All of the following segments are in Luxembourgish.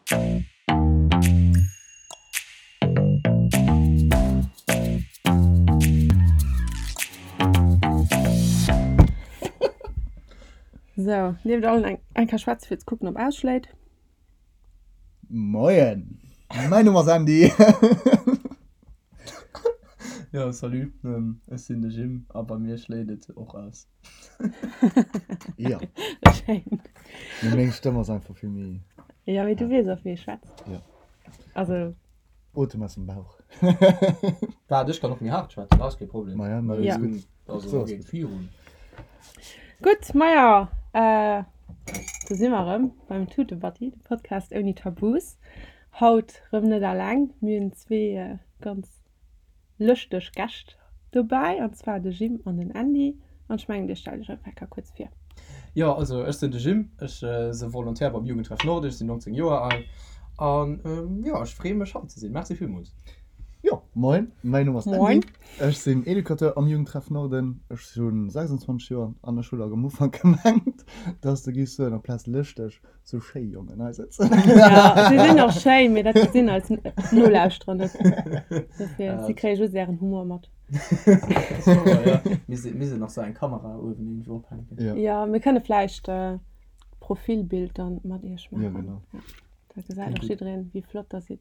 Sou, nieft allen eng eng Kéier schwätze fir ze kucken ob ausschléit. Moien, mäin Numm ass Andy. Jo, salut, ech sinn de Jim a bei mir schléit et och aus. Jo. Schéin. Mee meng Stëmm ass einfach vill méi. Jo, mee du weess och wéi ee schwätzt. Jo. Also. Otem aus dem Bauch. Waart, ech kann och méi haart schwätzen, dat ass kee Problem. Maja, ma dat ass gutt. Also, geet virun. Gutt, maja, do si mer erëm beim Tutebatti, de Podcast ouni Tabus. Haut rëm net alleng, mir hunn zwee ganz lëschteg Gäscht dobäi, an zwar de Jim an den Andy. An ech mengen, dir stellt iech einfach eng Kéier kuerz vir. Jo, also ech sinn de Jim, ech se Volontaire beim Jugendtreff Nord, ech sinn 19 Joer al an jo, ech freeë mech hei ze sinn. Merci villmools. Jo, moin, mäin Numm ass Andy. Moin. Ech sinn Educateur am Jugendtreff Norden, ech hu 26 Joer an ech hu lak am Ufank gemengt, dass de giffs soen, amplaz lëschteg, sou schéi Jongen hei sëtzen. Ja, si sinn och schéi, mee dat gesinn eis Nolauschterer net. Dofir, si kréie just ären Humor mat. Mir sinn nach sou eng Kamera uewen iergendwou ophänken. Ja. Ja, mir kënne vläicht d'Profilbild dann mat iech Ja, maachen. genau. Ja, da gesäit och jiddereen, wéi flott der sidd.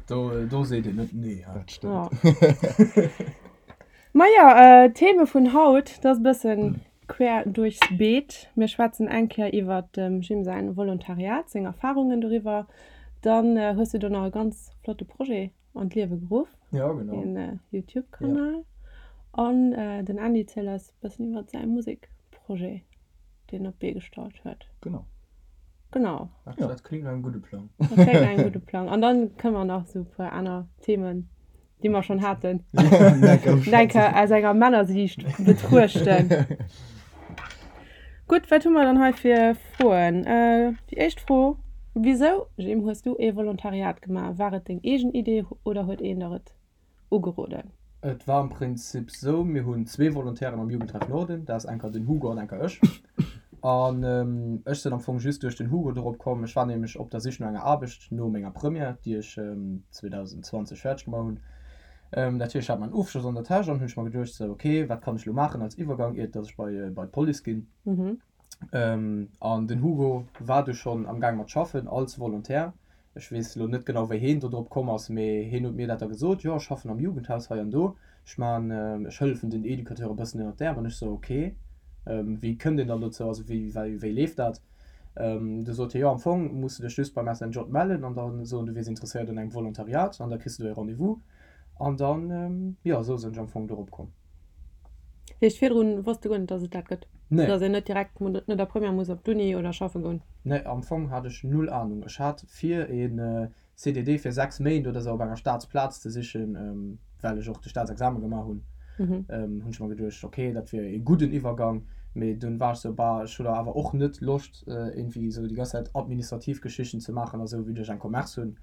Do, do seet een net nee, hä? Dat stëmmt. Ja. Maja, d'Theme vun haut, dat ass e bëssen quer duerchs Beet. Mir schwätzen eng Kéier iwwert dem Jim säin Volontariat, seng Erfarungen doriwwer. Dann hues du do nach e ganz flotte Projet an d'Liewe geruff, Ja, genau. een Youtube-Kanal. An den Andy zielt eis e bëssen iwwert säi Musekprojet, deen en op d'Bee gestallt huet. Genau. Genau. Dat, dat kléngt no engem gudde Plang. Dat kléngt no engem gudde Plang. An dann kënne mer nach esou e puer aner Themen déi mer schonn haten, denke aus enger Männersiicht betruechten. Gutt, wat hu mer dann hei fir Froen? Déi éischt Fro, Wisou, Jim, hues du ee Volontariat gemaach? War et deng eegen Idee oder huet een der et ugeroden? Et war am Prinzip sou, mir hunn zwee Volontairen am Jugendtreff Norden, dat ass enker den Hugo an enker ech. An ech sinn am Fong just duerch den Hugo dorop komm. Ech war nämlech op der Sich no enger Aarbecht no menger Première, déi ech 2020 fäerdeg gemaach hunn. Dat heescht, ech hat mäin Ofschloss an der Täsch an hunn ech mer geduecht, sou, ok, wat kann ech elo maachen als Iwwergang, iert dass ech bei bei d'Police ginn. An den Hugo war du schonn am Gaang mat schaffen als Volontaire. Ech weess elo net genau wéi heen do drop komm ass, mee heen huet mir dat da gesot, jo ech schaffen am Jugendhaus hei an do, ech man, ech hëllefen den Educateure e bëssen ënnert d'Äerm. An ech sou, ok, wéi kënnt een dann dozou, also wéi, wéi, wéi leeft dat? Du sot hie, jo am Fong muss de dech just beim SNJ mellen an da soen du wiers interesséiert un engem Volontariat an da kriss de do ee Rendez-vous. An dann, jo, esou sinn ech am Fong dorop komm. Heescht virdrun wosst de guer net dass et dat gëtt? Nee. Dass een net direkt no der Première muss op d'Uni oder schaffe goen? Nee, am Fong hat ech null Ahnung. Ech hat vir een CDD fir 6 Méint oder sou op enger Staatsplaz ze sichen, well ech och de Staatsexamen gemaach hunn, hunn ech mer geduecht, ok, dat wier ee gudden Iwwergang. Mee dunn war ech sou, bah, ech hu da awer och net Loscht iergendwéi sou déi ganz Zäit administrativ Geschichten ze maachen a sou, vue dass ech eng Commerce hunn.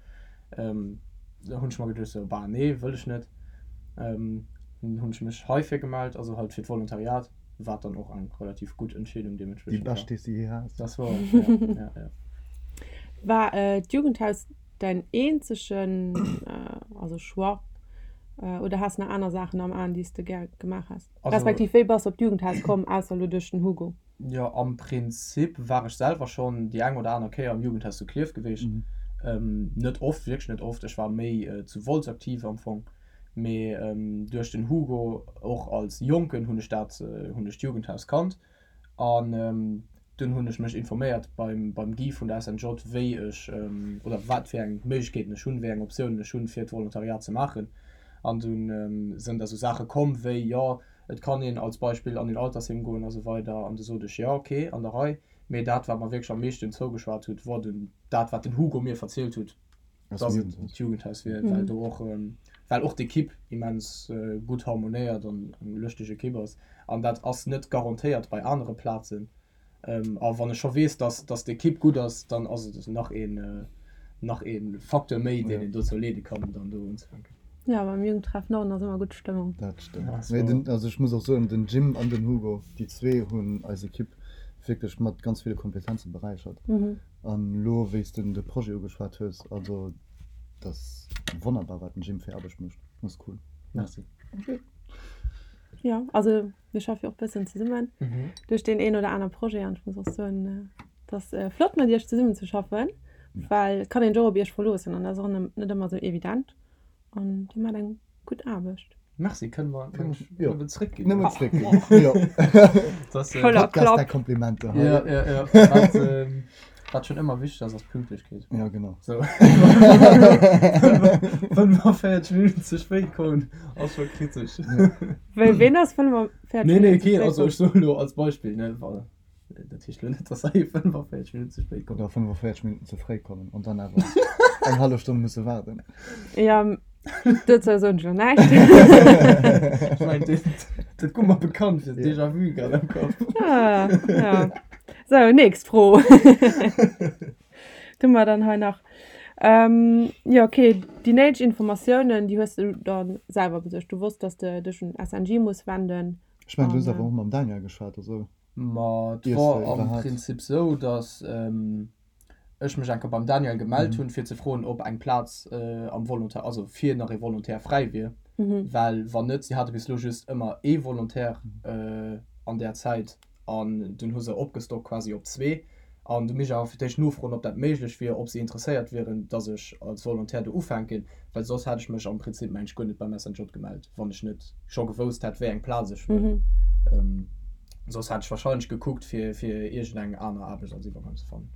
Da hunn ech mer geduecht sou, bah nee, wëll ech net. Dunn hunn ech mech heifir gemellt, also halt fir d'Volontariat, wat dann och eng relativ gutt Entscheedung Déi deementspriechend war. bescht, déi s de jee has. Dat war, ja, ja, ja. War d'Jugendhaus däin eenzegen, also Choix, oder has nach aner Saachen am Aen, déi s de gär gemaach häss? Respektiv wéi bass de op d'Jugendhaus komm, ausser elo duerch den Hugo? Jo, am Prinzip war ech selwer schonn déi eng oder aner Kéier am Jugendhaus zu Klierf gewiescht. Net oft, wierklech net oft. Ech war méi zu Wolz aktiv am Fong. Mee duerch den Hugo, och als Jonken, hunn ech dat, hunn ech d'Jugendhaus kannt. An dunn hunn ech mech informéiert beim, beim Guy vun der SNJ, wéi ech oder wat fir eng Méiglechkeeten ech hunn, wéi eng Optiounen ech hunn, fir d'Volontariat ze maachen. An dunn sënn da sou Saache komm wéi, jo, Et kann een als Beispill an een Altersheem goen a sou weider. An du sot ech, jo, ok, an der Rei. Mee dat, wat mer wierklech am meeschten zougeschwat hutt, wor dunn dat, wat den Hugo mir verzielt hutt, dass et d'Jugendhaus wier, well do och, well och d'Ekipp immens gutt harmonéiert an eng lëschteg Ekipp ass. An dat ass net garantéiert bei anere Plazen. A wann ech scho weess, dass, dass d'Ekipp gutt ass, dann ass et nach een, nach ee Facteur méi, deen een dozou leede kann, dann do unzefänken. Jo, beim Jugendtreff Norden ass ëmmer gutt Stëmmung. Dat stëmmt. Mee den, also ech muss och soen, den Jim an den Hugo, déi zwee hunn eis Ekipp. Wierklech mat ganz ville Kompetenze beräichert. An elo wéi s de de Projet ugeschwat hues, also dat ass wonnerbar wat den Jim fir Aarbecht mécht, dat ass cool. Merci. Jo, also mir schaffe jo och bëssen zesummen duerch deen een oder aner Projet an ech muss och soen, et ass flott mat iech zesummen ze schaffen, well et kann een sech och op iech verloossen an dat ass och net ëmmer esou evident an dir maacht eng gutt Aarbecht. Merci, kënne mer nëmmen zréckginn. Nëmmen zréckginn, jo. Voller Podcast der Komplimenter. Jo, jo, jo. Wat, wat schonn ëmmer wichteg ass, ass Pünktlechkeet. Ja, genau. So. 45 Minutten ze spéit kommen, ass scho kritesch. Wéi, ween ass 45 Nee, nee, Minutten ze keen, spéit also komm? ech soen elo als Beispill, ne, wa. Dat heescht elo net, dass hei 45 Minutten ze spéit kommen. Oder 45 Minutten ze fréi kommen an dann awer eng hallef Stonn musse waarden. Ja, dozou soen ech elo näischt. Ech mengen, dat, dat koum mer bekannt vir, déjà vu grad am Kapp. Ah, ja. Sou, nächst Fro. Du mer dann hei nach. Ähm, jo, okay, déi néideg Informatiounen, déi hues du dann selwer besuergt. Du wosst, dass de dech un SNJ muss wenden. Ech mengen, du hues awer och mam Daniel geschwat, also. Ma et wor am Prinzip sou, datt ech mech eng Kéier beim Daniel gemellt hunn, fir ze froen, ob eng Plaz am Volontaire, also fir nach ee Volontaire fräi wier. Well wann net, si hate bis elo just ëmmer ee Volontaire an där Zäit an dunn hu se opgestockt quasi op zwee. An du misst ech awer fir d'éischt nofroen, ob dat méiglech wier, ob si interesséiert wieren, datt ech als Volontaire do ufänken, well soss hätt ech mech am Prinzip, mengen ech, guer net beim SNJ gemellt, wann ech net scho gewousst hätt, wéi eng Plaz ech wëll. Soss hätt ech warscheinlech gekuckt, fir fir iergendeng aner Aarbecht als Iwwergang ze fannen.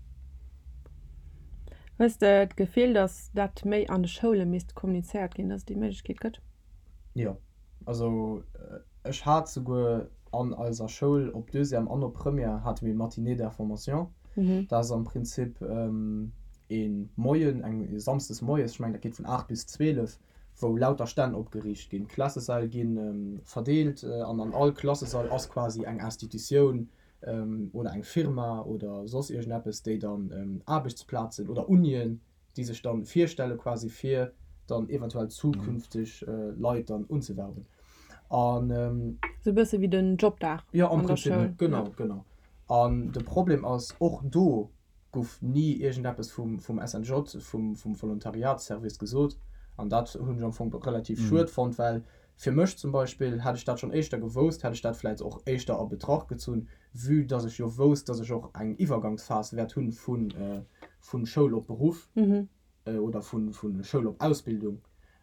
Hues de d'Gefill, datt dat méi an de Schoule misst kommunizéiert ginn, datt et déi Méiglechkeet gëtt? Jo, also ech hat souguer an eiser Schoul op Deuxième an op Première hate mir Matinée d'information. Dat ass am Prinzip ee Moien, eng samsdes moies, ech mengen dat geet vun 8 bis 12, wou lauter Stänn opgeriicht ginn. D'Klassesäll gi verdeelt an an all Klassesall ass quasi eng Institutioun oder eng Firma oder soss iergendeppes, déi dann Aarbechtsplazen oder Unien déi sech dann virstelle quasi fir dann eventuell zukünfteg Leit dann unzewerben an. Sou e bësse wéi den Jobdag jo am Prinzip, genau genau. An de Problem ass och do gouf ni iergendeppes vum vum SNJ, vum vum Volontariatsservice gesot an dat hunn ech am Fong relativ schued fonnt, well Fir mech zum Beispill, hätt ech dat schonn éischter gewousst, hätt ech dat vläicht och éischter a Betracht gezunn, vue dass ech jo wousst, dass ech och eng Iwwergangsphas wäert hunn vu Schoul op Beruff oder vu Schoul op Ausbildung.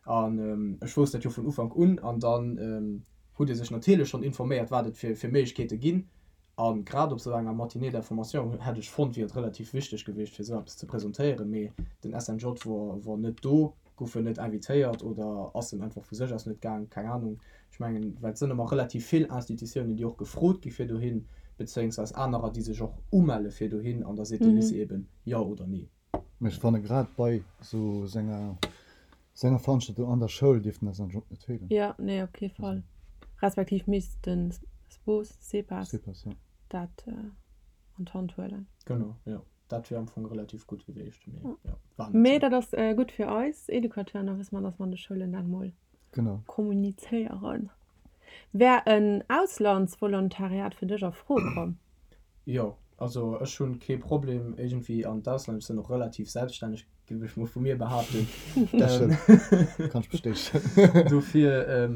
An ech wousst dat jo vun Ufank un. An dann hutt ee sech natierlech schonn informéiert, wat et fir Méiglechkeete ginn. A grad op esou enger Matinée d'information hätt ech fonnt, wier et relativ wichteg gewiescht, fir esou eppes ze presentéieren. Mee den SNJ wor, wor net do, gouf en net invitéiert oder ass en einfach vu sech aus net gaang, keng Anung. Ech mengen, well et sënn ëmmer relativ vill Institutiounen, déi och gefrot gi fir dohin, bezéiungsweis anerer, déi sech och umelle fir dohin, an da seet de Lycée eben jo oder nee. Mee ech fanne grad bei sou senger senger Veranstaltung an der Schoul dierft den SNJ net feelen. Jo, nee, op kee Fall. Respektiv misst de Spos, Sepas, Sepas, jo. dat an d'Hand huelen. Genau, jo. Dat wier am Fong relativ gutt gewiescht, mee jo, war net Mee sou. dat ass gutt fir eis Educateuren, da wësse mer, dass mer an de Schoulen dat mol Genau. kommunizéieren. Wär en Auslandsvolontariat fir dech a Fro komm? Jo, also ech hunn kee Problem iergendwéi an d'Ausland, ech sinn och relativ selbststänneg, géif ech mol vu mir behaapten. Dat stëmmt, kann ech bestätegen. Dofir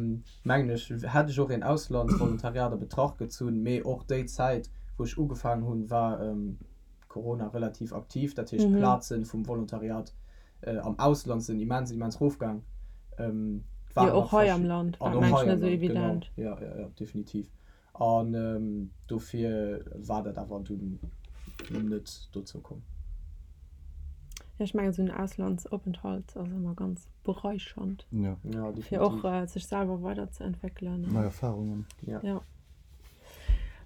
mengen ech, hätt ech och een Auslandsvolontariat a Betracht gezunn, mee och déi Zäit wou ech ugefaangen hunn, war Corona relativ aktiv, dat heescht d'Plaze vum Volontariat am Ausland sinn immens, immens rofgaang. Jo, och hei am Land war et mengen ech net esou evident. Genau, jo, jo, jo, definitiv. An dofir war dat awer dunn net dozou komm. Jo, ech mengen esou en Auslandsopenthalt ass ëmmer ganz beräichernd. Jo. Ja, definitiv. Fir och sech selwer weiderzeentwéckelen. Nei Erfarungen. Ja. Jo.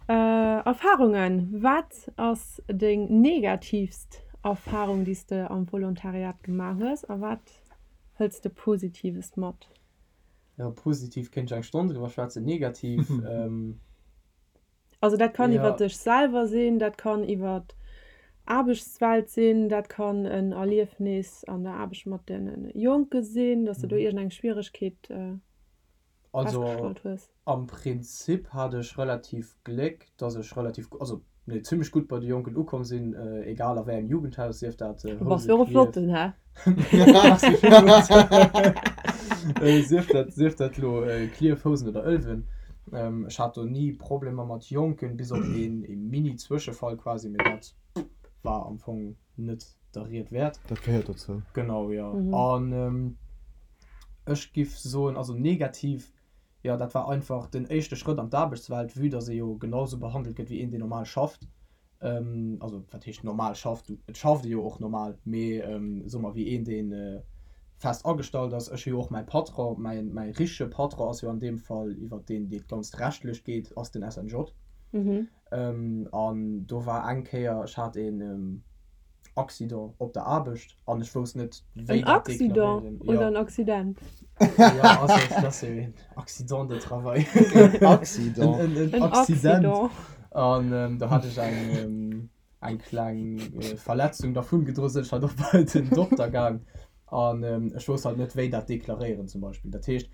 Erfarungen, Wat ass deng negatiivst Erfarung, déi s de am Volontariat gemaach hues a wat hëls de Positives mat? Jo, positiv kéint ech eng Stonn driwwer schwätzen, negativ. Also dat kann iwwer dech selwer sinn, dat kann iwwer d'Aarbechtswelt sinn, dat kann en Erliefnis an der Aarbecht mat de Jonke sinn, dass de do iergendeng Schwieregkeet Also festgestallt hues. am Prinzip hat ech relativ Gléck, dass ech relativ, also. Nee, zimmlech gutt bei de Jonken ukomm sinn, egal a wéi engem Jugendhaus, sief dat Du bass jo och e flotten, hä? Merci villmools. Sief dat, sief dat elo Klierf, Housen oder Ëlwen. Ech hat do ni Problemer mat Jonken, bis op een ee Mini-Zwëschefall quasi, mee dat war am Fong net der Ried wäert. Dat gehéiert dozou. Genau, jo. An ech giff soen, also negativ Jo, dat war einfach den éischte Schrëtt an d'Aarbechtswelt, vue dass ee jo genau sou behandelt gëtt wéi een, deen normal schafft. Also, wat heescht normal schafft? Et schafft ee jo och normal, mee soe mer wéi een, dee fest agestallt ass. Ech hu jo och mäi Patron, mäi, mäi richtege Patron ass jo an deem Fall, iwwert deen dat Ganzt rechtlech geet, ass den SNJ. An do war eng Kéier, ech hat een Accident op der Aarbecht an ech wousst net, wéi En dat Accident deklaréieren. oder Jo. en Accident? Jo, also et ass jo een Accident de travail. Accident. En, en, En Accident. Accident. An do hat ech eng, eng kleng Verletzung dervun gedroen, sinn ech halt och bei den Dokter gaang an ech wousst halt net, wéi dat deklaréieren zum Beispill. Dat heescht,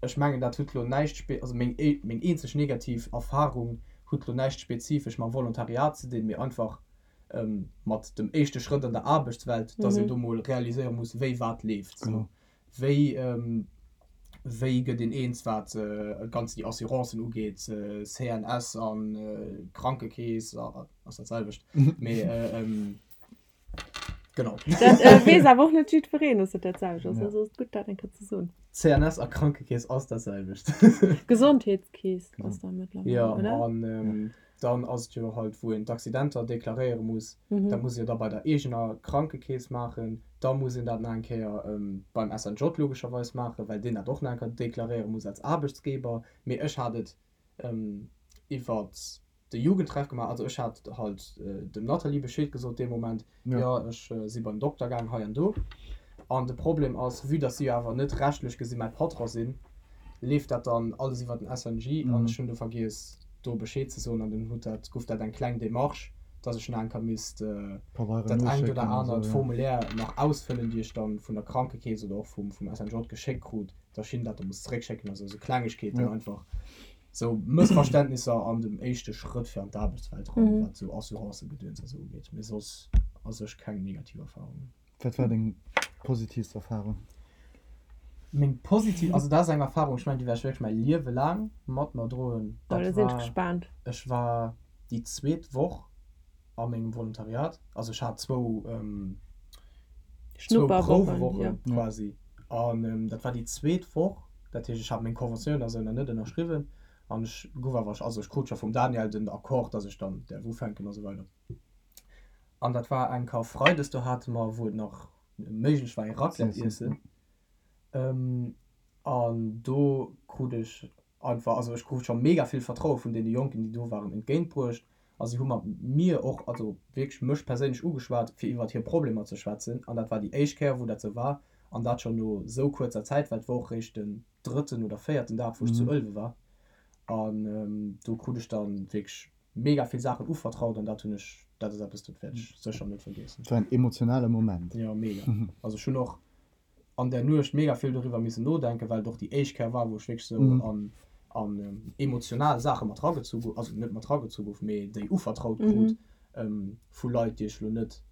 ech mengen, dat huet lo näischt spe-, also meng, meng eenzeg negativ Erfahrung huet lo näischt spezifesch mam Volontariat ze dinn, mee einfach mat dem éischte Schrëtt an der Aarbechtswelt, dass een do mol realiséiere muss, wéi wat leeft. Genau. Wéi, wéi gëtt een eens, wat ganz déi Assurancen ugeet, CNS an Krankekeess, ass dat selwecht, mee genau. Dat weess awer och net jiddwereen, dass dat dat selwecht ass. Also ass et gutt, dat eng Kéier ze soen. CNS a Krankekeess ass dat selwecht. Gesondheetskeess ass da mëttlerweil, Jo, oder? an Dann ass et jo halt, wou een d'Accidenter deklaréiere muss. Dat muss ee jo da bei der eegener Krankekeess maachen. Da muss een dat nach eng Kéier beim SNJ logescherweis maachen, well deen dat och nach eng Kéier deklaréiere muss als Aarbechtsgeber. Mee ech hat et iwwer de Jugendtreff gemaach. Also ech hat halt dem Nathalie Bescheed gesot dee Moment, jo ech si beim Dokter gaang hei an do. An de Problem ass, vue dass si jo awer net rechtlech gesi mäi Patron sinn, leeft dat dann alles iwwer den SNJ an ech hunn do vergiess do Bescheed ze soen an dunn huet dat, gouf dat eng kleng Démarche, dass ech nach eng Kéier misst dat engt oder anert Formulaire nach ausfëllen, déi ech dann vun der Krankekeess oder och vum SNJ geschéckt krut, dass ech hinnen dat da muss zeréckschécken, also esou Klengegkeeten einfach, esou Mëssverständnisser an dem éischte Schrëtt fir an d'Aarbechtswelt eran, wat esou Assurancëgedöns a sou ugeet, mee soss a sech keng negativ Erfahrungen. Wat war deng positivst Erfahrung? Meng positiv, also dat ass eng Erfahrung, ech mengen déi wäert ech wierklech mäi Liewe laang mat mer droen. Oh, da sinn ech gespaant. Ech war déi zweet Woch a mengem Volontariat, also ech hat zwou zwou Prouwewoche quasi an dat war déi zweet Woch, dat heescht ech hat meng Conventioun a sou nach net ënnerschriwwen an ech gouf awer, also ech krut scho vum Daniel den Accord, dass ech dann däerf ufänken a sou weider. An dat war eng Karfreides, do hate mer, wou et nach méiglech war, ee Raclette iessen. An do krut ech einfach, also ech krut scho mega vill Vertraue vun deene Jonken, déi do waren, entgéintbruecht. A si hu mat mir och, also wierklech mech perséinlech ugeschwat, fir iwwert hir Problemer ze schwätzen. An dat war déi éischt Kéier, wou dat sou war. An dat schonn no sou kuerzer Zäit, well et war och réischt den drëtten oder véierten Dag, wou ech zu Ëlwe war. An do krut ech dann wierklech mega vill Saachen uvertraut an dat hunn ech, dat ass eppes, dat wäert ech sécher net vergiessen. Et war en emotionale Moment. Jo, mega. Also ech hunn och an där Nuecht mega vill doriwwer missen nodenken, well et och déi éischt Kéier war, wou ech wierklech esou an an emotional Saache mat ragezu gouf, also net mat ragezu gouf, mee déi uvertraut krut vu Leit, déi ech elo net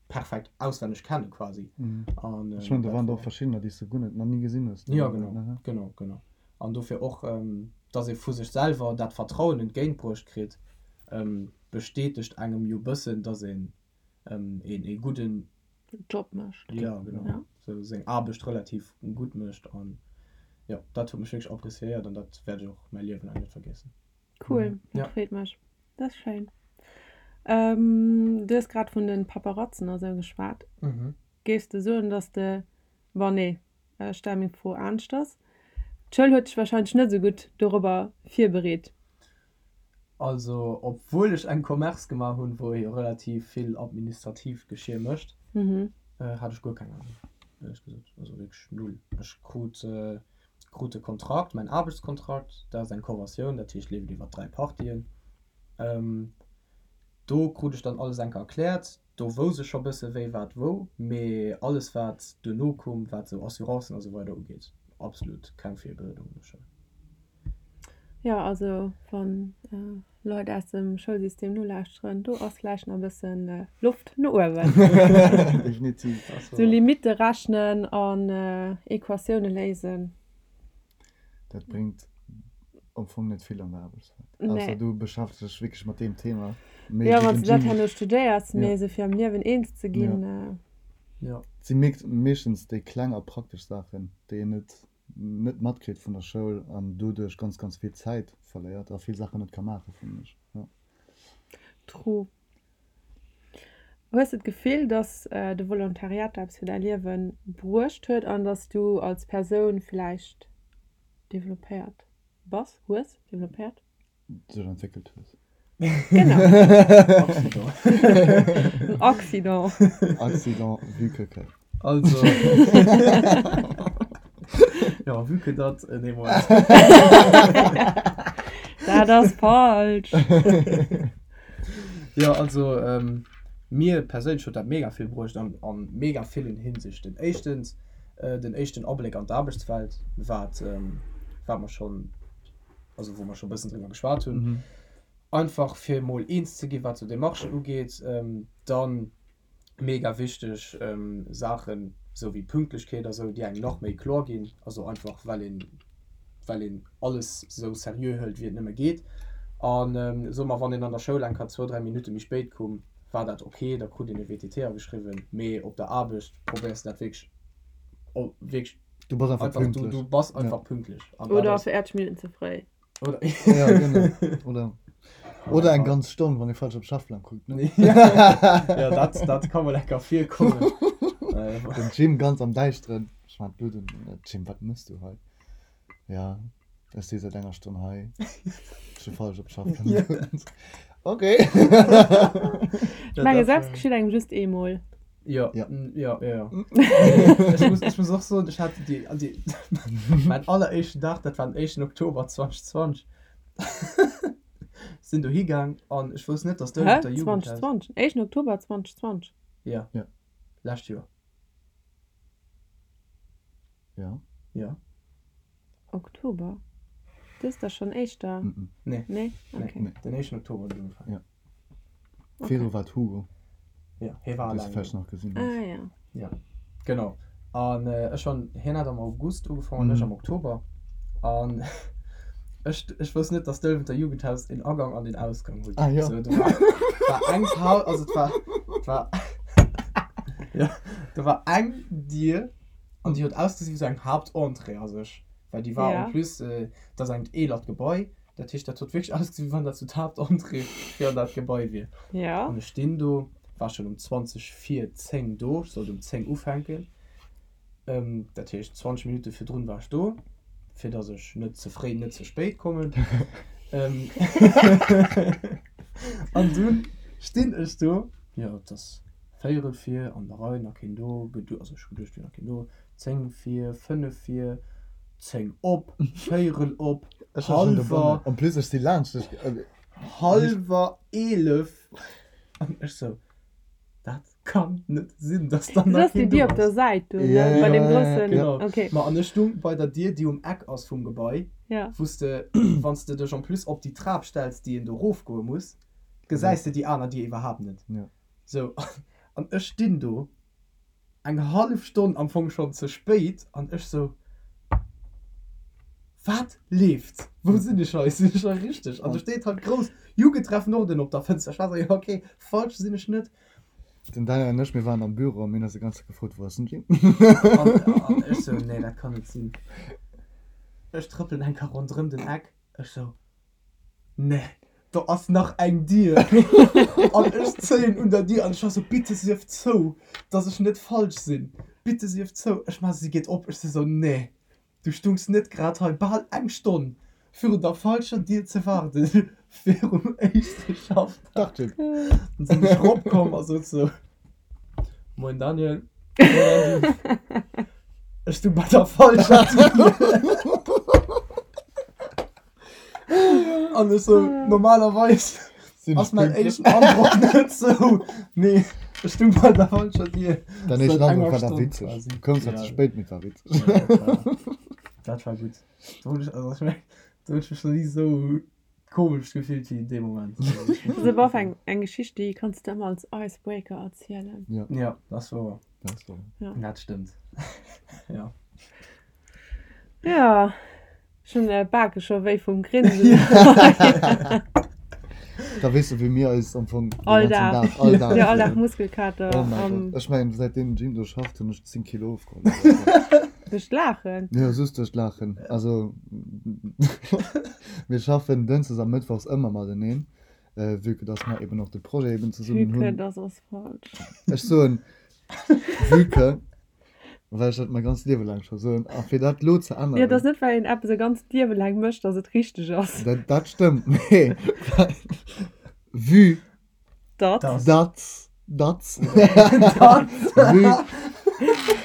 perfekt auswenneg kenne quasi. An ech mengen, do waren der och verschiddener, déi s de guer net, nach ni gesinn hues. Jo, genau, genau, genau. An dofir och, dass ee vu sech selwer dat Vertrauen entgéintbruecht kritt, bestätegt engem jo bëssen, dass een een ee gudden Job mécht. Jo, genau, sou seng Aarbecht relativ gutt mécht. An jo, dat huet mech wierklech appréciéiert an dat wäert ech och mäi Liewen laang net vergiessen. Cool, dat freet mech. Dat ass schéin. Du hues grad vun de Paparatzen a sou geschwat. Géifs de soen, dass de, bon nee, ech stelle meng Fro aneschters, d'Schoul huet dech warscheinlech net esou gutt dorobber virbereet? Also obwuel ech eng Commerce gemaach hunn, wou ee jo relativ vill administratiivt Geschir mécht, hat ech guer keng Ahnung, éierlech gesot. Also wierklech null. Ech krut krut de Kontrakt, mäin Aarbechtskontrakt, dat ass eng Conventioun, dat heescht leeft iwwer 3 Partien. Do krut ech dann alles enker erkläert, do wousst ech scho bësse wéi wat wou, mee alles wat duerno koum, wat sou Assurancen a sou weider ugeet, absolut keng Virbereedung an der Schoul. Jo, also wann Leit aus dem Schoulsystem nolauschteren, do ass vläicht nach e bëssen Loft no uewen. Definitiv. Sou Limitte rechnen an Equatioune léisen. Dat bréngt am Fong net vill an der Aarbechtswelt. Ausser du beschäftegs dech wierklech mat deem Thema. Jo, wann s de dat herno studéiers, mee esou fir am Liewen eens ze ginn. Et si meeschtens déi kleng a praktesch Saachen, déi een net net matkritt vun der Schoul an doduerch ganz ganz vill Zäit verléiert a vill Saachen net ka maachen, fannen ech. Jo. True. Hues de d'Gefill, dass de Volontariat der eppes fir däi Liewe bruecht huet an dass du als Persoun villäicht developpéiert bass, hues, developpéiert? Sech entwéckelt hues. Genau. Accident. En Accident. Accident, vu que que. Also. Ja, vu que dat, nee, Moment. Dat ass falsch. Jo, also mir perséinlech huet dat mega vill bruecht an a mega villen Hinsichten. Éischtens den éischten Abléck an d'Aarbechtswelt, wat wat mer schonn, also wou mer scho bëssen driwwer geschwat hunn. Einfach fir emol eens ze ginn, wat sou Demarchen ugeet. Dann mega wichteg Saachen, esou wéi Pünktlechkeet a sou, déi engem nach méi kloer ginn, also einfach well een, well een alles esou seriö hëlt wéi et nëmme geet. An soe mer, wann een an der Schoul eng Kéier zwou, dräi Minutte méi spéit koum, war dat ok, da krut een e WTT ageschriwwen, mee op der Aarbecht probéiers de dat wierklech, wierklech Du bass einfach einfach, du, pünktlech. du bass einfach pünktlech. An dat Oder ass. 40 Minutten ze fréi. Oder Ja, genau. Oder, oder eng ganz Stonn, wann ee falsch op Schaffplang kuckt, ne? Ja, dat, dat ka mol enker virkommen. Den Jim ganz am Däischteren. Ech man d'Blut un. Jim, wat mëss du hei? Ja, ech si säit enger Stonn hei. Ech hu falsch op Schaffplang gekuckt. Okay. Ech menge selbst geschitt engem just eemol. Jo, Ja. jo, jo, jo. Ech muss, ech muss och soen, ech hat déi, déi, mäin alleréischten Dag, dat war den éischten Oktober 2020, sinn dohi gaang an ech wousst net, dass do Hä? der Jugendhaus. 2020? Éischten Oktober 2020? Ja. Ja. Lescht Joer. Ja. Ja. Oktober? Dëst ass schonn éischter. Nee. Nee? Okay. Nee. Den éischten Oktober huet et ugefaangen. Ja. Viru war d'Hugo. Ja, hie war Dee s alleng du vläicht do. nach gesinn hues. Ah ja. Ja, genau. An ech hunn, hien hat am August ugefaangen, ech am Oktober. An ech, ech wousst net, dass d'Ëlwenter Jugendhaus een Agang an een Ausgang huet. Ah ja. Sou, do war, war eng Pau, also et war, et war, ja, do war eng Dier an déi huet ausgesinn wéi sou eng Haaptentrée a sech, well déi war Ja. en plus, dat ass engt eelert Gebai, dat heescht, dat huet wierklech ausgesinn, wéi wann dat sou d'Haaptentrée fir an dat Gebai wier. Ja. An ech stinn do, war schonn um 20 vir 10 do, ech sollt um 10 ufänken, dat heescht 20 Minutte virdrun war ech do, fir datt ech net ze fréi, net ze spéit kommen. An dunn stinn ech do, jo, et ass Véierel vir, an der Rei, nach keen do, gedu, also ech hu geduecht, et wier nach keen do, 10 vir, 5 vir, 10 op, Véierel op, Ech war schonn dobannen. hallwer. En plus, ech si laanscht dech. Hallwer 11, an ech sou, dat kann net sinn, dass dann Das nach ass déi keen do Dier op der ass. Säit do, ne? Ja, Bei ja, deem ja, groussen, Genau. okay. Ma an ech stung bei der Dier, déi um Eck ass vum Gebai, Ja. wou s de, wann s de dech en plus op déi Trap stells, déi een do rofgoe muss, gesäis de déi aner Dier iwwerhaapt net. Ja. Sou, an ech stinn do, eng hallef Stonn am Fong schonn ze spéit, an ech sou, Wat leeft? Wou sinn ech hei? Sinn ech hei richteg? An do steet halt grouss Jugendtreff Norden op der Fënster. Ech war sou, jo ok, falsch sinn ech net. Den Daniel an ech, mir waren am Büro a mir hunn eis déi ganz Zäit gefrot, Wou ass den Jim? An, an ech sou, Nee, dat kann net sinn. Ech trëppelen eng Kéier ronderëm den Eck, ech sou, Nee, do ass nach eng Dier. An ech zéien un der Dier an ech war sou, Bitte sief zou, dass ech net falsch sinn. Bitte sief zou. Ech maachen, si geet op. Ech si sou, Nee, du stungs net grad hei bal eng Stonn virun der falscher Dier ze waarden, virum éischte Schaffdag. Dach, Jim. Dann sinn ech ropkomm a sot sou, Moien Daniel. Moien Andy. Ech stung bei der falscher Dier. An ech sou, normalerweis Sinn ass ech mäin pünktlech? éischten Androck net sou, mee ech stung bei der falscher Dier. Dein Seit éischten enger Androck war da Stonn witzeg. quasi. Du koums zwar Ja. ze spéit, mee et war witzeg. Ja, dat war, dat war gutt. Do hunn ech, also ech meng. Do hunn ech mech nach ni esou komesch gefillt wéi dee Moment. Dat ass awer och eng, eng Geschicht, déi kanns de ëmmer als Icebreaker erzielen. Ja. Ja, dat ass wouer. Dat ass wouer. Ja. Dat stëmmt. Ja. Ja, ech hunn d'Bake scho wéi vum Grinsen. Da weess de, wéi mir eis am Fong den All ganzen Dag. Dag, all Dag. Ja, all Dag Muskelkater. Oh mäi Gott. Ech mengen, säitdeem den Jim do schafft, hunn ech 10 Kilo ofgeholl. Duerch d'Laachen? Jo, just duerch d'Laachen. Also, mir schaffen dënschdes a mëttwochs ëmmer mateneen, vue que dass mer eben och de Projet eben zesummen hunn. Vue que dass ass falsch. Ech soen vue que. Well ech dat mäi ganzt Liewe laang scho soen. A fir dat elo ze änneren. Jo, et ass net, well een eppes e ganzt Liewe laang mécht, datt et richteg ass. Dat, dat stëmmt, mee vue. Datt. Datt. Datt. Vue.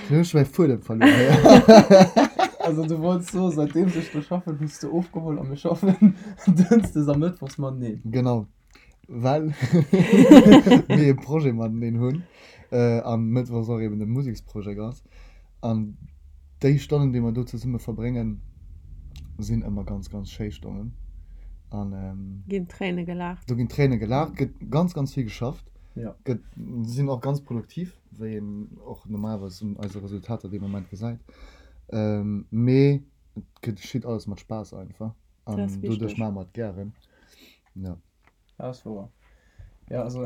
Elo hunn ech mäi Fuedem verluer. Also du wollts soen, säitdeems ech do schaffen, hues de ofgeholl a mir schaffen dënschdes a mëttwochs mateneen. Genau. Well mir e Projet mateneen hunn a mëttwochs och eben de Museksprojekt ass. An déi Stonnen, déi mer do zesumme verbréngen, sinn ëmmer ganz, ganz schéi Stonnen. An ginn Tréine gelaacht. Do ginn Tréine gelaacht, gëtt ganz, ganz vill geschafft, gëtt, sinn och ganz produktiv, wéi een och normalerweis un eise Resultater dee Moment gesäit. Mee et geschitt alles mat Spaass einfach an doduerch maache mer et gären. Ja. Dat ass wouer. Ja, also,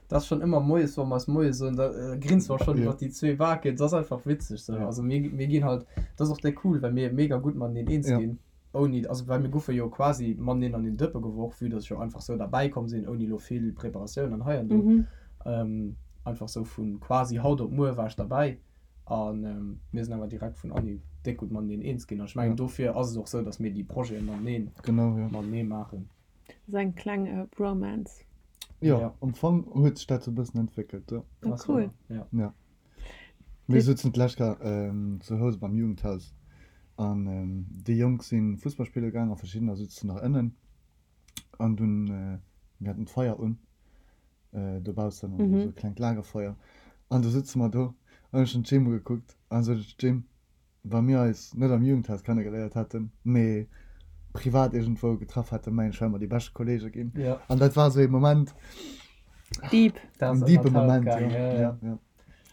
dat ass schonn ëmmer moies, wa mer eis Moie soen, da grinse mer schonn iwwer déi zwee Baken. Dat ass einfach witzeg sou. Also mir, mir ginn halt, dat ass och déck cool, well mir mega gutt mateneen eens ginn, ouni, also well mir guffe jo quasi mateneen an den Dëppe geworf, vue dass ech jo einfach sou derbäi komm sinn, ouni elo vill Preparatioun an hei an do. Einfach sou vu quasi haut op muer war ech derbäi a mir sinn awer direkt vun Anhieb déck gutt mateneen eens ginn. An ech mengen, dofir ass et och sou, dass mir déi Projete mateneen, matenee maachen. Das ass eng kleng Bromance. Jo, ja. Am Fong huet sech dat sou e bëssen entwéckelt, jo. Ah, cool. Ja. Ja. Mir souzen d'lescht Kéier ähm, zu Housen beim Jugendhaus an ähm, déi Jonk si Fussball spille gaang a verschiddener souzen nach ënnen an dunn, äh, mir haten d'Feier un äh, dobaussen, also mhm. sou e klengt Lagerfeuer an du sutze mer do an ech hunn d'Jim ugekuckt an sot ech, Jim, Wa mir eis net am Jugendhaus kennegeléiert hätten, mee privat iergendwou getraff hätten, mengen ech, wäre mer déi bescht Kollege ginn. An dat war esou ee Moment. Deep. En deepe Moment, jo. Ja.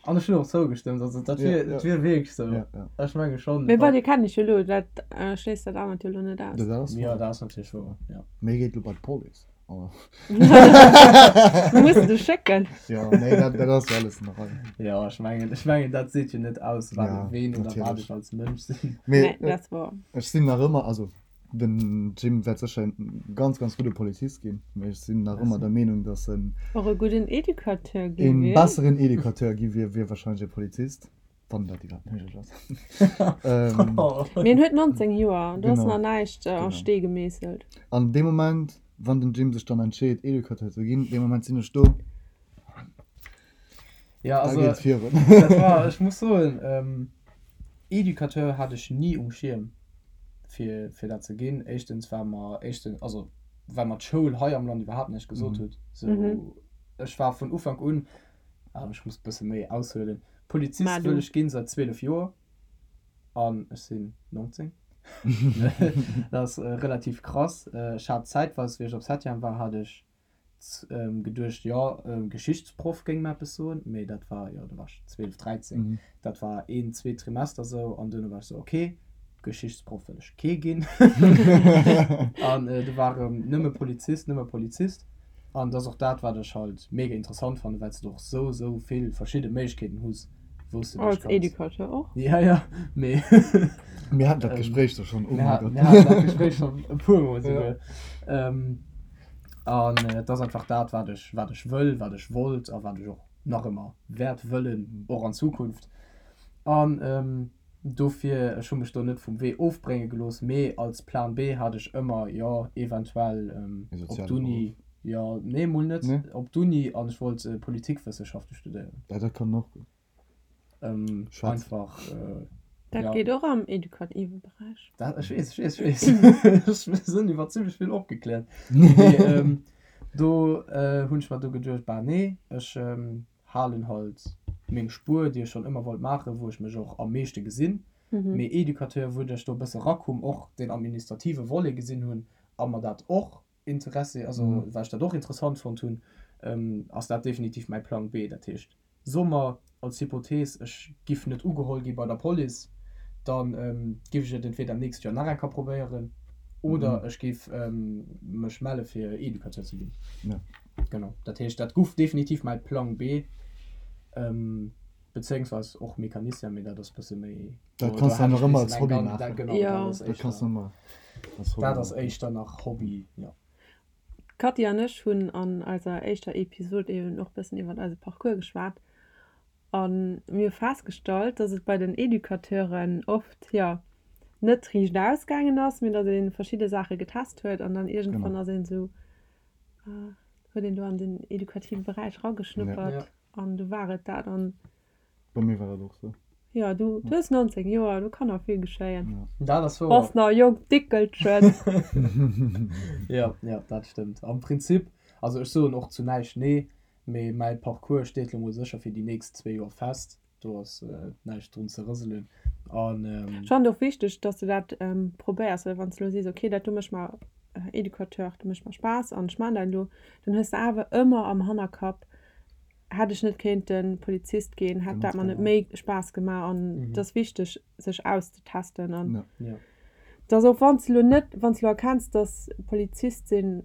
An ech hunn och zougestëmmt, also dat wier, dat wier wierklech esou. Ech menge schonn. Mee bon, dir kennt iech jo elo, dat schléisst dat anert jo elo net aus. Dat ass wouer. Jo, dat ass natierlech wouer, jo. Mee geet elo bei d'Police. Mir mussen dech schécken. Jo, nee, dat, dat ass jo alles an der Rei. Jo, ech mengen, ech mengen, dat seet jo net aus, wat, ja, ween oder wat ech als Mënsch sinn. Mee, nee, dat ass wouer. Ech sinn nach ëmmer, also den Jim wäert sécher en ganz, ganz gudde Polizist ginn, mee ech sinn nach ëmmer der Meenung, dass en. Och e gudden Educateur gi wier. E besseren Educateur gi wier, wéi warscheinlech e Polizist. Wann dat iwwerhaapt méiglech ass. Mee en huet 19 Joer, do ass nach näischt a Stee gemeesselt. An dee Moment, wann den Jim sech dann entscheet, Educateur ze ginn, dee Moment sinn ech do. Ja, also, da geet et virun. Dat war, ech muss soen, Educateur hat ech ni um Schierm, fir, fir dat ze ginn. Éischtens, well mer, éischtens, also well mer d'Schoul hei am Land iwwerhaapt näischt gesot huet. Sou, ech war vun Ufank un, ech muss e bësse méi aushuelen, Polizist wëll ech ginn säit 12 Joer an ech sinn 19. Dat ass relativ krass. Ech hat zäitweis, wéi ech op Septième war, hat ech geduecht, jo, Geschichtsproff géing mer eppes soen, mee dat war, jo, do war ech 12, 13. Dat war een, zwee Trimester sou an duerno war ech sou, ok, Geschichtsproff wëll ech kee ginn. An du war erëm nëmme Polizist, nëmme Polizist. An dat ass och dat, wat ech halt mega interessant fannen, well s de och sou, sou vill verschidde Méiglechkeeten hues, wou s de dech Als kanns. Educateur och. Ja, ja, mee. Mir haten dat Gespréich do schonn, oh mäi Gott. Mir haten dat Gespréich schonn e puer Mol souguer. An et ass einfach dat, wat ech, wat ech wëll, wat ech wollt a wat ech och nach ëmmer wäert wëllen, och an Zukunft. An dofir, ech hu mech do net vum Wee ofbrénge gelooss, mee als Plan B hat ech ëmmer, jo, eventuell op d'Uni, jo, nee, mol net op d'Uni an ech wollt Politikwëssenschaften studéieren. Ja, dat kann och gutt. Einfach, jo. Dat geet och am edukative Beräich. Dat, ech weess, ech weess, ech weess. Ech sinn iwwer zimmlech vill opgekläert. Mee do hunn ech mer du geduecht, bah nee, ech halen halt meng Spuer, déi ech schonn ëmmer wollt maachen, wou ech mech och am meeschte gesinn. Mee Educateur, wou ech do e bësse rakoum, och deen administrative Volet gesinn hunn a mer dat och Interessi, also well ech dat och interessant fonnt hunn, ass dat definitiv mäi Plang B. Dat heescht, soe mer als Hypothees, ech giff net ugeholl gi bei der Police, da giff ech et entweder nächst Joer nach eng Kéier probéieren oder ech géif mech melle fir Educateur ze ginn. Genau, dat heescht, dat guff definitiv mäi Plang B, bezéiungsweis och Mecanicien, mee dat ass bësse méi. Dat kanns du nach ëmmer als Hobby maachen. Genau, dat ass éischter, dat ass éischter nach Hobby, jo. D'Cathy an ech hunn an eiser éischter Episod eben och bëssen iwwert eise Parcours geschwat a mir hu festgestallt, dass et bei den Educateuren oft, jo, net riicht ausgaangen ass, mee dass ee verschidde Saache getest huet an dann iergendwann ass een esou, huet een do an den edukative Beräich erageschnuppert an du war et dat. An Bei mir war dat och sou. Jo, du hues 19 Joer, do kann nach vill geschéien. Dat ass wouer. Bass nach e jonkt Dickelchen. Jo, jo, dat stëmmt. Am Prinzip, also ech soen och zu näischt nee, mee mäi Parcours steet lo mol sécher fir déi nächst zwee Joer fest. Do ass näischt drun ze rëselen. An. Ech fannen et och wichteg, dass de dat probéiers, well wann s de elo sees, okay, dat do mécht mer, Educateur, dat mécht mer Spaass an ech maachen dat elo, dann hues de awer ëmmer am Hannerkapp, Hätt ech net kéinten Polizist ginn, hätt dat mer net méi Spaass gemaach an et ass wichteg sech auszetesten an dass och wann s de lo net, wann s de lo erkenns, dass Polizist sinn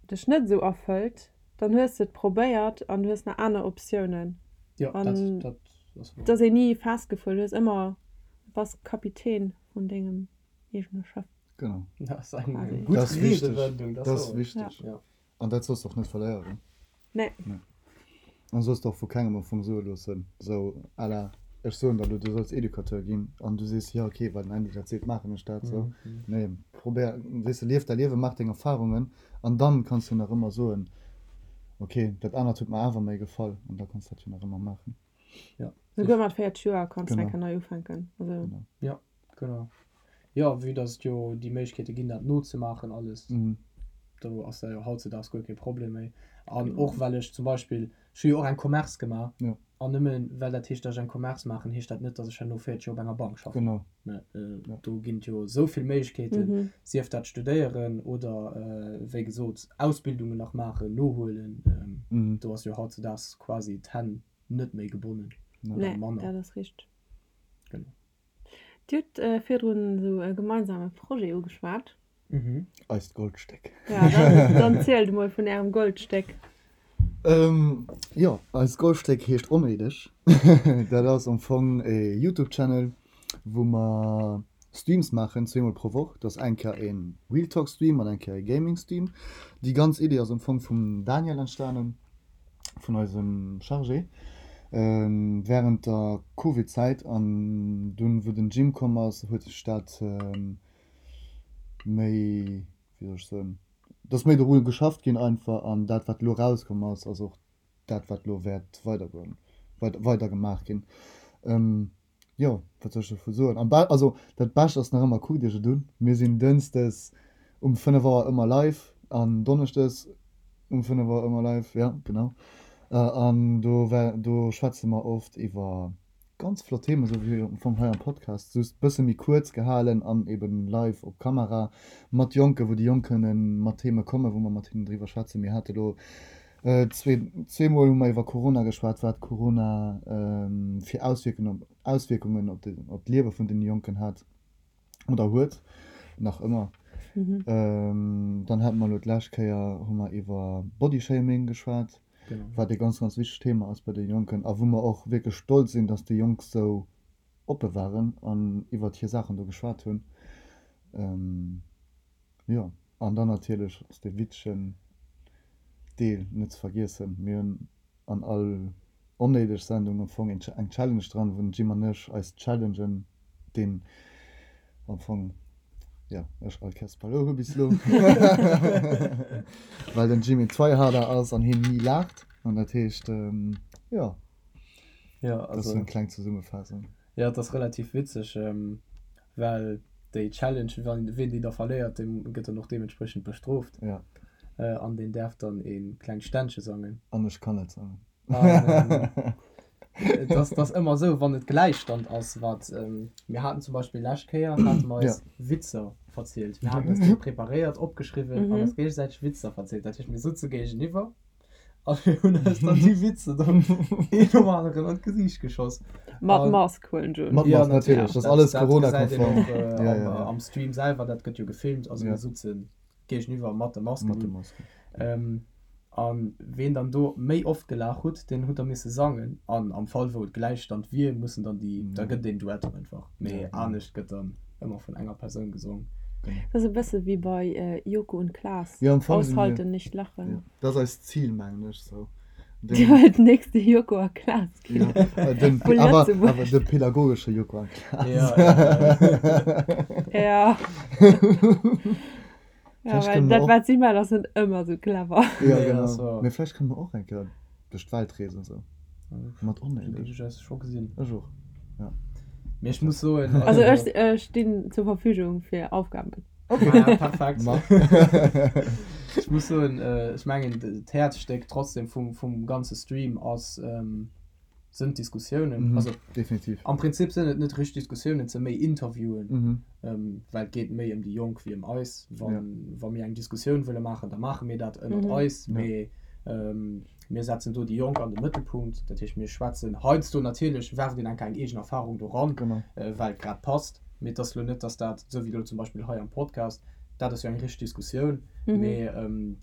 dech net esou erfëllt, dann hues de et probéiert an du hues nach aner Optiounen an et ass een ni festgefuer, du hues ëmmer, bass Kapitän vun dengem eegene Schëff. Genau. Dat ass eng gutt Riedewendung, dat ass wichteg. An dat solls de och net verléieren. Nee. Nee. An solls de och vu kengem am Fong soe loossen, sou à la, ech soen der elo, du solls Educateur ginn, an du sees, jo okay, well den Andy dat seet, maachen ech dat sou. Nee, probéier, weess de, lief däi Liewen, maach deng Erfarungen an dann kanns du nach ëmmer soen, okay, dat anert huet mer awer méi gefall, an da kanns du dat jo nach ëmmer maachen. Ja. Souguer mat 40 Joer kanns du eng Kéier nei ufänken. Also. Genau. Ja, genau. Jo, vue dass et jo déi Méiglechkeete ginn, dat nozemaachen alles, do ass dat jo hautzedaags guer kee Problem méi. An och well ech zum Beispill, ech hu jo och eng Commerce gemaach, an nëmme well dat heescht, dass ech eng Commerce maachen, heescht dat net, dass ech herno 40 Joer op enger Bank schaffen. Genau. Ne, do ginn et jo esou vill Méiglechkeeten, sief dat studéieren oder wéi gesot Ausbildungen nach maachen, nohuelen. Do ass jo hautzedaags quasi d'Hänn net méi gebonnen oder manner. Nee, dat ass richteg. Genau. Dir hutt virdrun esou e gemeinsame Projet ugeschwat. Eist Goldstéck. Ja, dann, dann zielt emol vun Ärem Goldstéck. Jo, eist Goldstéck heescht Onnéideg. Dat ass am Fong e Youtube-Channel, wou mer Streams maachen, zweemol pro Woch. Dat ass eng Kéier e Real Talk Stream an eng Kéier e Gaming Stream. Déi ganz Idee ass am Fong vum Daniel entstanen. vun eisem Chargé während der Covid Zäit an dunn wou den Jim komm ass huet sech dat méi, wéi soll ech soen, et ass méi doru geschafft ginn einfach an dat wat elo rauskomm ass ass och dat wat elo wäert weidergoen, weider gemaach ginn. Jo, wat soll ech dovu soen? Am Be also dat Bescht ass nach ëmmer, kuckt iech et un. Mir sinn dënschdes um 5 Auer ëmmer live an donneschdes um 5 Auer ëmmer live, jo genau. An do wär do schwätze mer oft iwwer ganz flott Themen, esou wéi am Fong hei am Podcast, just bësse méi kuerz gehalen an eben live op Kamera mat Jonken, wou déi Jonk kënne mat Theme kommen, wou mer mat hinnen driwwer schwätzen. Mir hate lo Zweemol hu mer iwwer Corona geschwat, wat Corona fir Auswierkungen op d'Liewe vun den Jonken hat oder huet, nach ëmmer. Dann hate mer elo d'lescht Kéier hu mer iwwer Bodyshaming geschwat, wat ee ganz, ganz wichtegt Thema ass bei de Jonken a wou mer och wierklech stolz sinn, datt déi Jonk sou oppe waren an iwwert hir Saachen do geschwat hunn. Jo, an dann natierlech ass dee witzegen Deel net ze vergiessen. Mir hunn an all onnéideg Sendung am Fong eng Challenge dran, wou den Jim an ech eis challengen, deen am Fong, jo, ech all Kéiers verluer hu bis elo, well den Jim een Tryharder ass an hien ni laacht. An dat heescht, jo, dat ass esou eng kleng Zesummefaassung. Jo, et ass relativ witzeg, well déi Challenge, wann ween déi da verléiert, dee gëtt dann och deementspriechend bestrooft. Ja. An deen däerf dann ee klengt Ständche sangen. An ech kann net sangen. An. Et ass, ass ëmmer esou, wann et Gläichstand ass, wat mir haten zum Beispill lescht Kéier hate mer eis Witzer verzielt. Mir haten eis déi preparéiert, opgeschriwwen an eis géigesäiteg Witzer verzielt. Dat heescht, mir sutze géigeniwwer a mir hunn eis dann déi Witzer dann een nom aneren an d'Gesiicht geschoss. Mat Mask huelen ech un. Mat Mask, natierlech, dat ass alles Corona-konform. Dat gesäit een och am Stream selwer, dat gëtt jo gefilmt. Also mir sutzen géigeniwwer mat de Masken. Mat de Masken. An ween dann do méi oft gelaach hutt, deen hutt da misse sangen. An am Fall wou et Gläichstand wier, mussen dann déi, da gëtt et een Duett einfach. Mee anescht gëtt dann ëmmer vun enger Persoun gesong. Dat ass e bësse wéi bei Joko und Klaas, Jo, am Fong si mir, Aushalten, nicht lachen. jo, dat ass eist Zil, mengen ech sou. Dir wëllt den nächste Joko a Klaas ginn. Jo, den, Vu awer, Lëtzebuerg. awer de pädagogesche Joko a Klaas. Ja, ja, ja. Ja. Ja, Vläicht well kënne mer dat och. wat si maachen ass net ëmmer sou clever. Ja, Nee, genau. ass wahr. Mee vläicht kënne mer och eng Kéier duerch d'Welt reesen sou. Mat Sou Onnéideg. géif ech eis scho gesinn. Ech och, ja. Mee ech muss soen, Also also. ech ech stinn zur Verfügung fir Aufgaben. Okay. Ah ja, perfekt. Ma. Ech muss soen, ech mengen d'Häerzstéck trotzdem vum vum ganze Stream ass sënn d'Diskussiounen. Also Definitiv. am Prinzip sënn et net richteg Diskussiounen, et së méi Interviewen, Mhm. ähm, well et geet méi ëm déi Jonk wéi ëm eis. Wann, Ja. wa mir eng Diskussioun wëlle maachen, da maache mir dat ënnert Mhm. eis, Ja. mee ähm, mir setzen do déi Jonk an de Mëttelpunkt. Dat heescht, mir schwätzen heiansdo natierlech, werft een enker eng eegen Erfarung do ran, Genau. äh, well et grad passt. Mee et ass lo net, dass dat, esou wéi lo zum Beispill hei am Podcast, dat ass jo eng richteg Diskussioun, mee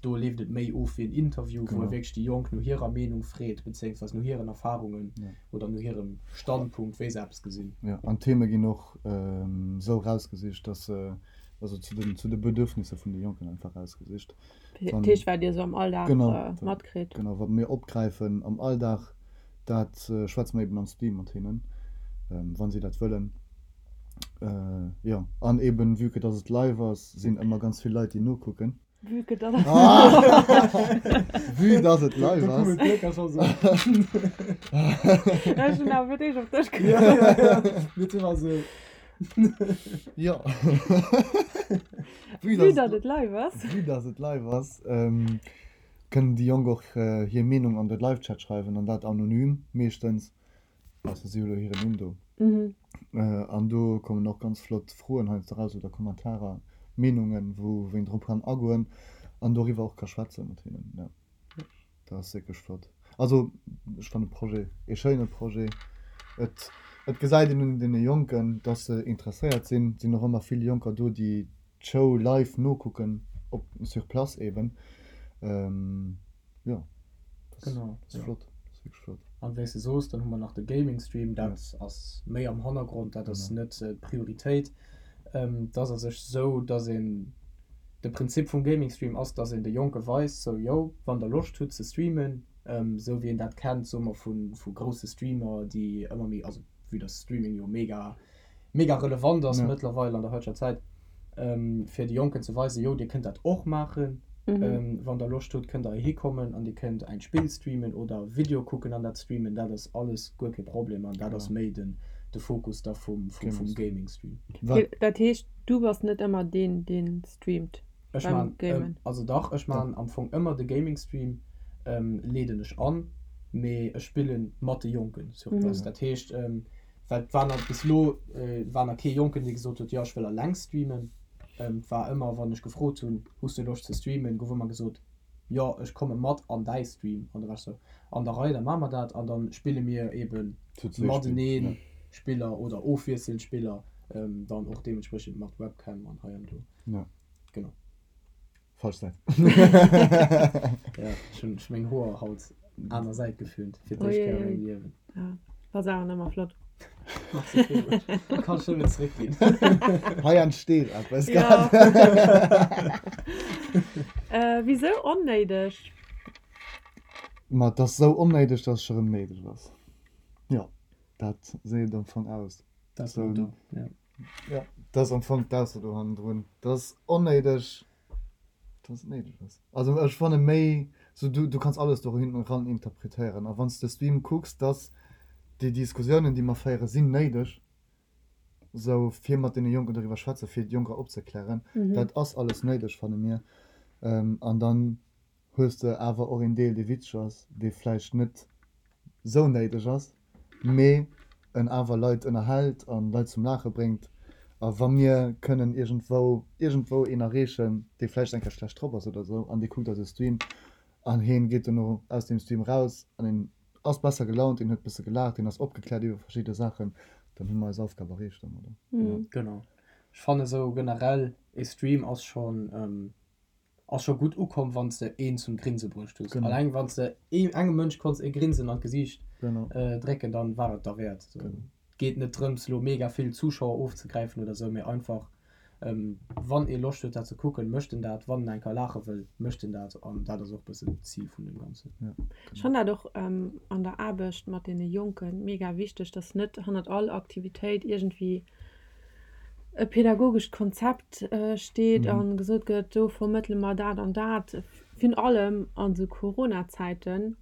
do leeft et méi of wéi en Interview, wou e wierklech déi Jonk no hirer Meenung freet, bezéiungsweis no hiren Erfarungen oder no hirem Standpunkt, wéi se eppes gesinn. Jo, an d'Theme ginn och esou erausgesicht, dass se, also zu den, zu de Bedürfnisser vun de Jonken einfach erausgesicht. Dat heescht, wat Dir esou am Alldag matkritt. Genau, wat mir opgräifen am Alldag, dat schwätze mer eben am Stream mat hinnen, wa si dat wëllen. Jo, an eben vue que dass et live ass, sinn ëmmer ganz vill Leit déi nokucken. Vue que dass et live ass. Vue dass et live ass. Ech hunn awer fir d'éischt op dech gekuckt. Jo. Vue dass et live ass. Vue dass et live ass, kënnen déi Jonk och hir Meenung an de Live-Chat schreiwen an dat anonym meeschtens. Ausser si hu lo hiren Numm do. An do kommen och ganz flott Froen heiansdo raus oder Kommentarer, Meenungen, wou een drop kann agoen an doriwwer och ka schwätze mat hinnen. Jo, dat ass wierklech flott. Also ech fannen de Projet ee schéine Projet. Et, et gesäit een un deene Jonken, dass se interesséiert sinn. Et sinn och ëmmer vill Jonker do, déi d'Show live nokucken, op sur place eben. Jo, dat Genau, ass ja. flott, dat ass wierklech flott. An wéi s de soos, dann hu mer nach de Gaming Stream, dat ass méi am Hannergrond, dat ass Genau. net d'Prioritéit. Et ass a sech esou, dass een, de Prinzip vum Gaming Stream ass, dass een de Jonke weist, sou, yo, wann der Loscht hutt ze streamen, esou wéi een dat kennt, soe mer, vu grousse Streamer, déi ëmmer méi, also vue dass Streaming jo mega mega relevant ass Ja. mëttlerweil an der heiteger Zäit, fir de Jonken ze weisen, jo, dir kënnt dat och maachen, wann der Loscht hutt, kënnt der heihi kommen an dir kënnt ein Spill streamen oder Video kucken an dat streamen, dat ass alles guer kee Problem an dat ass méi den de Fokus da vum vum Gaming-Stream. Wat? Dat heescht, du bass net ëmmer deen, deen streamt Ech beim maan, Gamen? also dach, ech maan am Fong ëmmer de Gaming-Stream, leeden ech an, mee ech spillen mat de Jonken sur place. Dat heescht, Well et war nach bis elo war nach kee Jonken, dee gesot huet, jo ech wëll alleng streamen. Et war ëmmer, wann ech gefrot hunn, hues du Loscht ze streamen, gouf ëmmer gesot, jo ech komme mat an däi Stream. An da war ech sou, an der Rei, da maache mer dat an da spille mir eebe matenee Spiller oder ofwiesselnd Spiller, dann och deementspriechend mat Webcam an hei an do. Genau. Falsch Säit. Ja, ech hunn meng Hoer haut aner Säit geföhnt, fir d'éischt Kéier a mengem Liewen. Ja, ass awer nëmmer flott. Merci villmools. Kann ech nëmmen zeréckginn. Hei entsteet eppes Ja. grad. Wisou onnéideg? Ma et ass esou onnéideg, dass et scho rëm néideg ass. Jo, dat seet et am Fong aus. Dat ass do, ja. Jo, dat ass am Fong d'Ausso do hannendrun. Dat ass onnéideg, dass et néideg ass. Also ech fanne méi sou, du, du kanns alles do hinten ran interpretéieren. A wann s de Stream kucks, dass déi Diskussiounen, déi mer féieren, sinn néideg, sou fir mat deene Jonken doriwwer schwätzen, fir d'Jonker opzeklären. Dat ass alles néideg, fanne mir. An dann hues de awer och een Deel, dee witzeg ass, dee vläicht net sou néideg ass. Mee en awer Leit ënnerhält an Leit zum Laache bréngt. A wa mir kënnen iergendwou, iergendwou een erreechen, dee vläicht eng Kéier schlecht drop ass oder esou an dee kuckt eise Stream an heen geet dono aus deem Stream raus an en ass besser gelaunt, en huet bësse gelaacht, en ass opgekläert iwwer verschidde Saachen, dann hu mer eis Aufgab erreecht domadder. Genau. Ech fannen esou generell e Stream ass schonn, ass scho gutt ukomm wann s de een zum Grinse bruecht hues. Genau. Alleng wann s de ee engem Mënsch konns e Grinsen an d'Gesiicht Genau. drécken, dann war et derwäert. Sou Genau. geet net drëms lo mega vill Zuschauer ofzegräifen oder sou, mee einfach wann ee Loscht huet dat ze kucken, mécht en dat, wann en eng Kéier laache wëll, mécht en dat an dat ass och bëssen d'Zil vun dem Ganzen. Ja, Ech fann dat och an der Aarbecht mat deene Jonken mega wichteg, dass net hannert all Aktivitéit iergendwéi e pädagogescht Konzept steet a gesot gëtt, do vermëttele mer dat an dat, virun allem an esou Corona-Zäiten,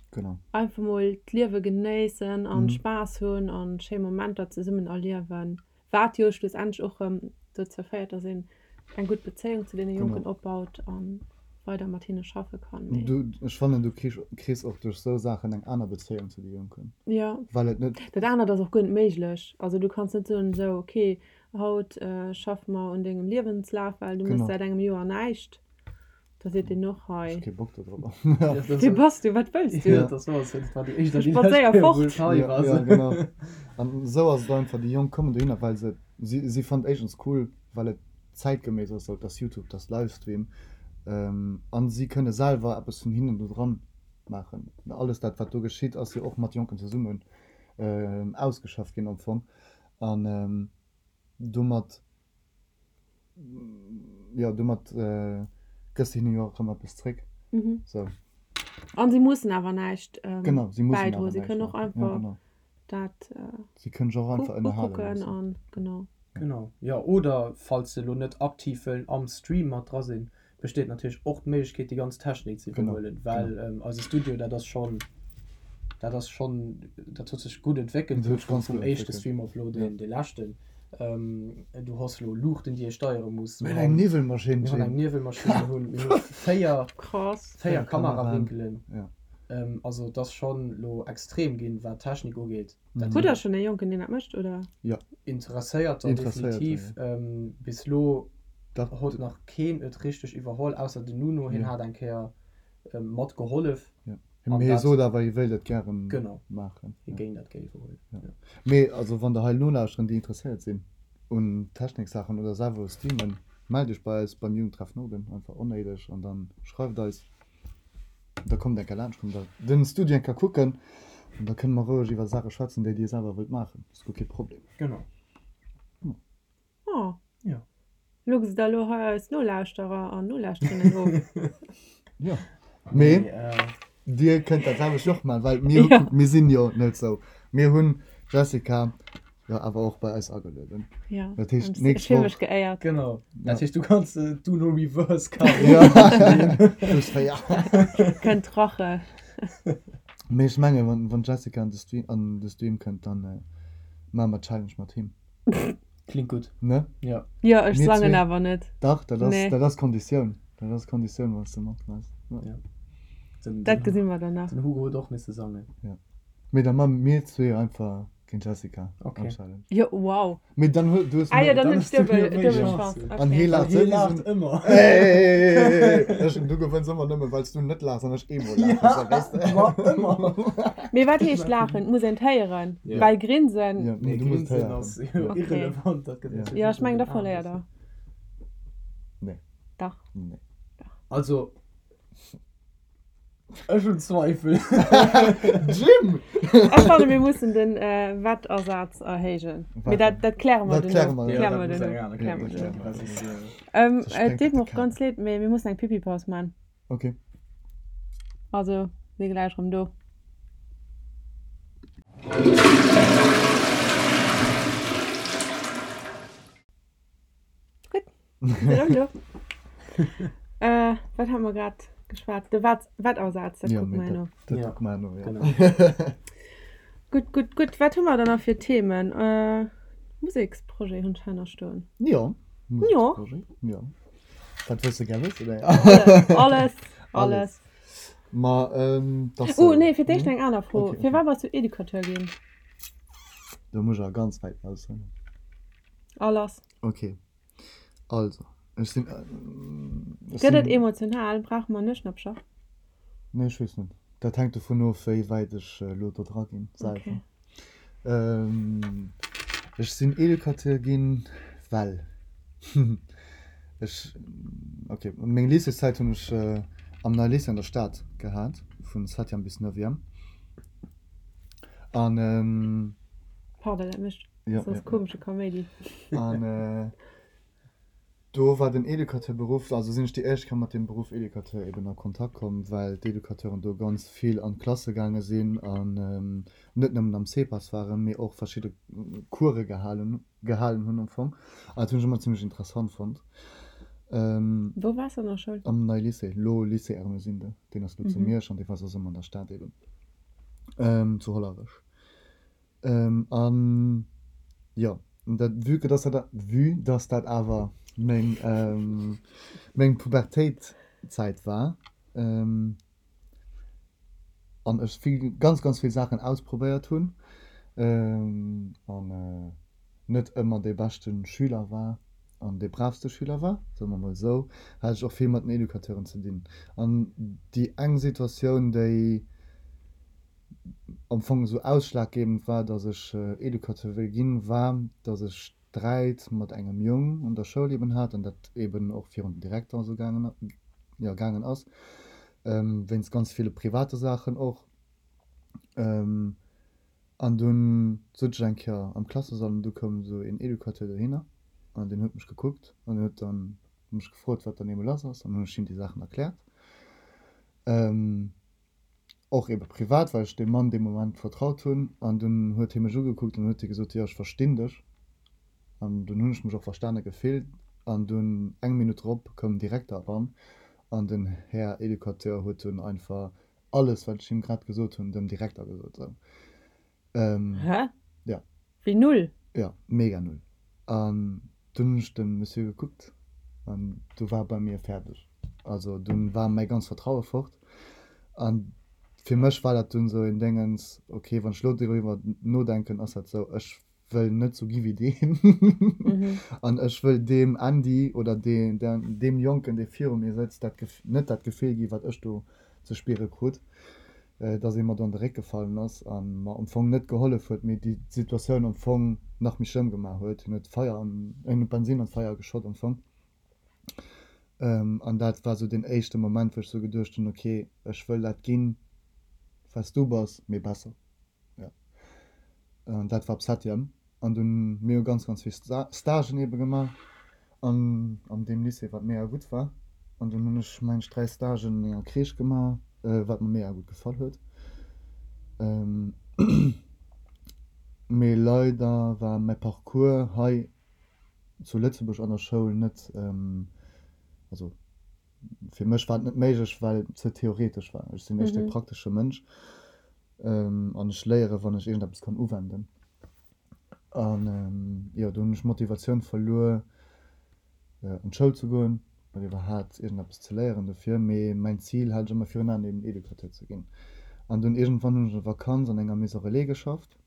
einfach mol d'Liewe genéissen an Spaass hunn an schéi Momenter zesummen erliewen, wat jo schlussendlech och erëm dozou féiert, dass een eng gutt Bezéiung zu deene Jonken opbaut a weider mat hinne schaffe kann. Du, ech fannen, du kriss och duerch esou Saachen eng aner Bezéiung zu de Jonken. Jo. Well et net. Dat anert ass och guer net méiglech. Also du kanns net soen, esou, ok, haut schaffe mer un dengem Liewenslaf, well du méchs säit engem Joer näischt. Da seet deen och, hei. Ech hu kee Bock do drop. Wie bass du? Wat wëlls du? Jo, dat war dat war déi éischt an déi lescht Spadséier Kéier, wou fort. ech hei war. Jo, genau. An esou ass et einfach, déi Jonk kommen dohinner, well se, si, si fannen et éischtens cool, well et zäitgeméiss ass, sou dass Youtube, dass Livestream, an si kënne selwer eppes vun hinnen do dran maachen. Alles dat wat do geschitt ass jo och mat Jonken zesummen ausgeschafft ginn am Fong an domat, jo domat gëss de hinnen jo och erëm eppes zréck. Sou. An si mussen awer näischt Genau, si mussen awer bäidroen, si näischt kënnen och maachen. Ja einfach genau. dat Si kënnen sech och einfach ënnerhale ukucken loossen. an genau. Genau, jo. Oder falls se elo net aktiv wëllen am Stream mat dra sinn, besteet natierlech och d'Méiglechkeet déi ganz Technik ze Genau, iwwerhuelen, well genau. eise Studio, dat ass schonn, dat ass schonn, dat huet sech gutt entwéckelt Dat huet sech vum ganz vum gutt éischte entwéckelt, Stream op elo ja. deen dee leschten. Du hues elo Luuchten déi ee steiere muss, Mir mir hunn eng hunn Niwwelmaschinn, mir hunn eng Jim. Niwwelmaschinn, mir hunn mir hu 4 Krass. 4 4 Kameraen, Kamerawénkelen. ja. Also et ass schonn elo extrem ginn, wat d'Technik ugeet. Dat Hutt der schonn ee Jonken, deen dat mécht, oder? Jo. Interesséierter Interesséierter, definitiv. jo. Bis elo Dach. huet nach keen et richteg iwwerholl, ausser den Nuno, hien Jo. hat eng Kéier mat gehollef. Jo. An Mee hie dat. sot awer, hie wéilt et gären Genau. maachen. Hie Jo. géing dat gär iwwerhuelen, Jo. jo. Mee also wann der hei nolauschteren, déi interesséiert sinn un Techniksaachen oder selwer u streamen, mellt iech bei eis beim Jugendtreff Norden, einfach onéideg, an dann schreift eis. Da kommt eng Kéier laanscht, kommt der den Studio eng Kéier kucken an da kënne mer roueg iwwer Saache schwätzen, déi dir selwer wëllt maachen. Ass guer kee Problem. Genau. Oh. Jo. Luchs der elo hei eis Nolauschterer an Nolauschterinnen of? Jo. Mee dir kënnt dat selwecht och maachen, well mir, Jo. mir sinn jo net sou. Mir hunn d'Jessica jo awer och bei eis agelueden. Ja, Dat heescht, ech nächst fille Woch. mech geéiert. Genau. Ja. Dat heescht, du kanns d'Uno Reverse Card Ja. Plus 4. Kënnt Rache. Mee ech menge wann, wann d'Jessica an de Stream, an de Stream kënnt, dann maache mer d'Challenge mat him. Klingt gutt. Ne? Ja. Jo, ech Mir sangen zwee. awer net. Dach, dat ass, Nee. dat ass Konditioun. Dat ass Konditioun, wann s de matmaass. Ja. Ja. Den, Dat den, gesi mer dann nach. den Hugo huet och misse sangen. Mee da maache mir zwee einfach Géint Jessica Okay. am Challenge. Jo, wow. Mee dann hues du hues Ah jo, méi. dann hunn Dann ech hues du duebel, jo méi duebel Chance. Chance. An hee Okay. laacht Hee souwisou. laacht ëmmer. Hey, ech, du gewënns ëmmer nëmme well s du net laachs an ech eemol laachen, Ja, so weess de. ma ëmmer. Mee wat heescht laachen? Et muss een et héieren. Ja. Well grinsen. Ja, Nee, du muss et grinsen héieren. ass jo Okay. irrelevant. Dat gëtt Ja. natierlech Jo, ech net mengen, un da den Aen verléiert gesinn. der. Nee. Dach. Nee. Also. Ech hunn Zweifel. Jim! Ech fanne mir mussen den Wettasaz erhéijen. Mee dat, dat kläre mer Dat kläre duerno. mer Kläre mer dat muss duerno. eng aner Kläre mer Kéier duerno. ginn, well soss, Ähm, Soss et sprengt deet dat mer de och ganz Kader. leed, mee mir mussen eng Pipi-Paus man. Okay. Also, si gläich erëm do. Gutt, sinn erëm do. Äh, wat hate mer grad geschwat? De Wat, Wettasaz, dat Ja, kucke mee mer herno. dat, dat Ja. kucke mer herno, ja. Genau. Gutt, gutt, gutt. Wat hu mer dann nach fir Themen? Äh, Museksprojet hunn ech hei nach stoen. Jo, Jo. Museksprojet, jo. Wat wëlls de gär wëssen? Alles, alles, alles. Ma, ähm, dass. Oh, nee, fir d'éischt eng aner Fro. Okay, okay. Firwat bass du Educateur ginn? Do muss ech awer ganz wäit aushuelen. A lass. Ok, also ech sinn, ech Gëtt et sinn. emotional? Brauche mer Nueschnappcher? Nee, ech weess net. Dat hänkt dovun of, wéi wäit ech elo do dra ginn selwer. Ech sinn Educateur ginn, well ech, ok, meng Lycéeszäit hunn ech am Neie Lycée an der Stad gehat, vun Septième bis Neuvième. An. Pardon, dat mécht soss komesche Kaméidi. An Do war den Educateurberuff, also sinn ech déi éischt Kéier mat deem Beruff Educateur eben a Kontakt komm, well d'Educateuren do ganz vill an d'Klasse gaange sinn an net nëmmen am CEPAS waren, mee och verschidde Course gehalen gehalen hunn am Fong. An dat hunn ech ëmmer zimmlech interessant fonnt. Wou waars de an der Schoul? Am Neie Lycée, lo Lycée Ermesinde, deen ass lo zu Miersch an dee war soss ëmmer an der Stad eben, zu Hollerech. An jo, dat, vue que dass dat, vue dass dat awer meng, meng Pubertéit-Zäit war, an ech vill, ganz, ganz vill Saachen ausprobéiert hunn, an net ëmmer dee beschte Schüler war an dee braavste Schüler war, soe mer mol esou, hat ech och vill mat den Educateuren ze dinn. An déi eng Situatioun, déi am Fong esou ausschlaggebend war, dass ech Educateur wëll ginn, war, dass ech Sträit mat engem Jong an der Schoul eben hat an dat eben och virun den Direkter esou gaangen, jo, gaangen ass, wéinst ganz ville private Saachen och. An dunn sot ech eng Kéier am Klassesall an du koum esou een Educateur dohinner an deen huet mech gekuckt an huet dann mech gefrot, wat dann eebe lass ass an hunn ech him déi Saachen erkläert. Och ebe privat, well ech deem Mann dee Moment vertraut hunn. An dunn huet hie mech ugekuckt an huet hie gesot, jo, ech verstinn dech. An dunn hunn ech mech och verstane gefillt. An dunn eng Minutt drop koum den Direkter eran an den Här Educateur huet dunn einfach alles, wat ech him grad gesot hunn, dem Direkter gesot. Sou. Hä? Ja. Wéi null? Ja, mega null. An dunn hunn ech de Monsieur gekuckt an du war bei mir fäerdeg. Also dunn war mäi ganz Vertraue fort. An fir mech war dat dunn esou een Déngens, okay, wann ech elo doriwwer nodenken, ass dat esou, ech wëll net sou gi wéi deen an ech wëll deem Andy oder deem Jonken, dee viru mir sëtzt, dat net dat Gefill gi wat ech do ze spiere krut, dass ee mer do an de Réck gefallen ass a mer am Fong net gehollef huet, mee déi Situatioun am Fong nach méi schlëmm gemaach huet. Hien huet Feier an, hien huet Bensin an d'Feier geschott am Fong. An dat war sou deen éischte Moment, wou ech sou geduecht hunn, ok, ech wëll dat ginn, wat s du bass, mee besser. Jo. An dat war op Septième. An dunn, mir hu ganz, ganz vill Stagen eebe gemaach an an deem Lycée, wat mega gutt war. An dunn hunn ech, mengen ech, 3 Stagen an enger Crèche gemaach, wat mer mega gutt gefall huet. Mee leider war mäi Parcours hei zu Lëtzebuerg an der Schoul net, also fir mech war et net méiglech, well et ze theoretesch war. Ech sinn éischter e praktesche Mënsch an ech léiere wann ech iergendeppes kann uwenden. An jo, do hunn ech d'Motivatioun verluer an d'Schoul ze goen oder iwwerhaapt iergendeppes ze léieren dofir. Mee mäin Zil hat ech ëmmer virun Aen, eben Educateur ze ginn. An dunn iergendwann hunn ech an der Vakanz an enger Maison Relais geschafft.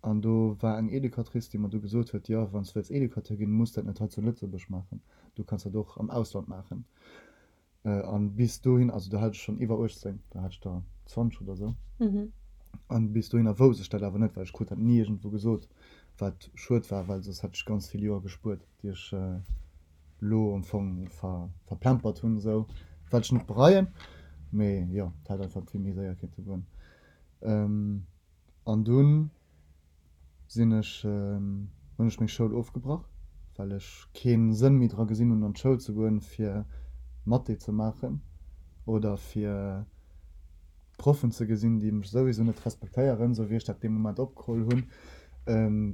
An do war eng Educatrice, déi mer du gesot huet, jo, wann s du wëlls Educateur ginn, muss dat net hei zu Lëtzebuerg maachen, du kanns dat och am Ausland maachen. An bis dohin, also do hat ech schonn iwwer 18, do hat ech der 20 oder esou, an bis dohinner wousst ech dat awer net, well ech krut dat ni iergendwou gesot, wat schued war, well soss hätt ech ganz vill Joer gespuert, déi ech elo am Fong verplempert hunn, esou, wat ech net bereien, mee jo, et hätt einfach vill méi séier kéinte goen. An dunn sinn ech, hunn ech meng Schoul ofgebrach, well ech kee Sënn méi dra gesinn hunn an d'Schoul ze goen, fir Mathé ze maachen oder fir Proffen ze gesinn, déi mech souwisou net respektéieren, sou wéi ech dat dee Moment opgeholl hunn,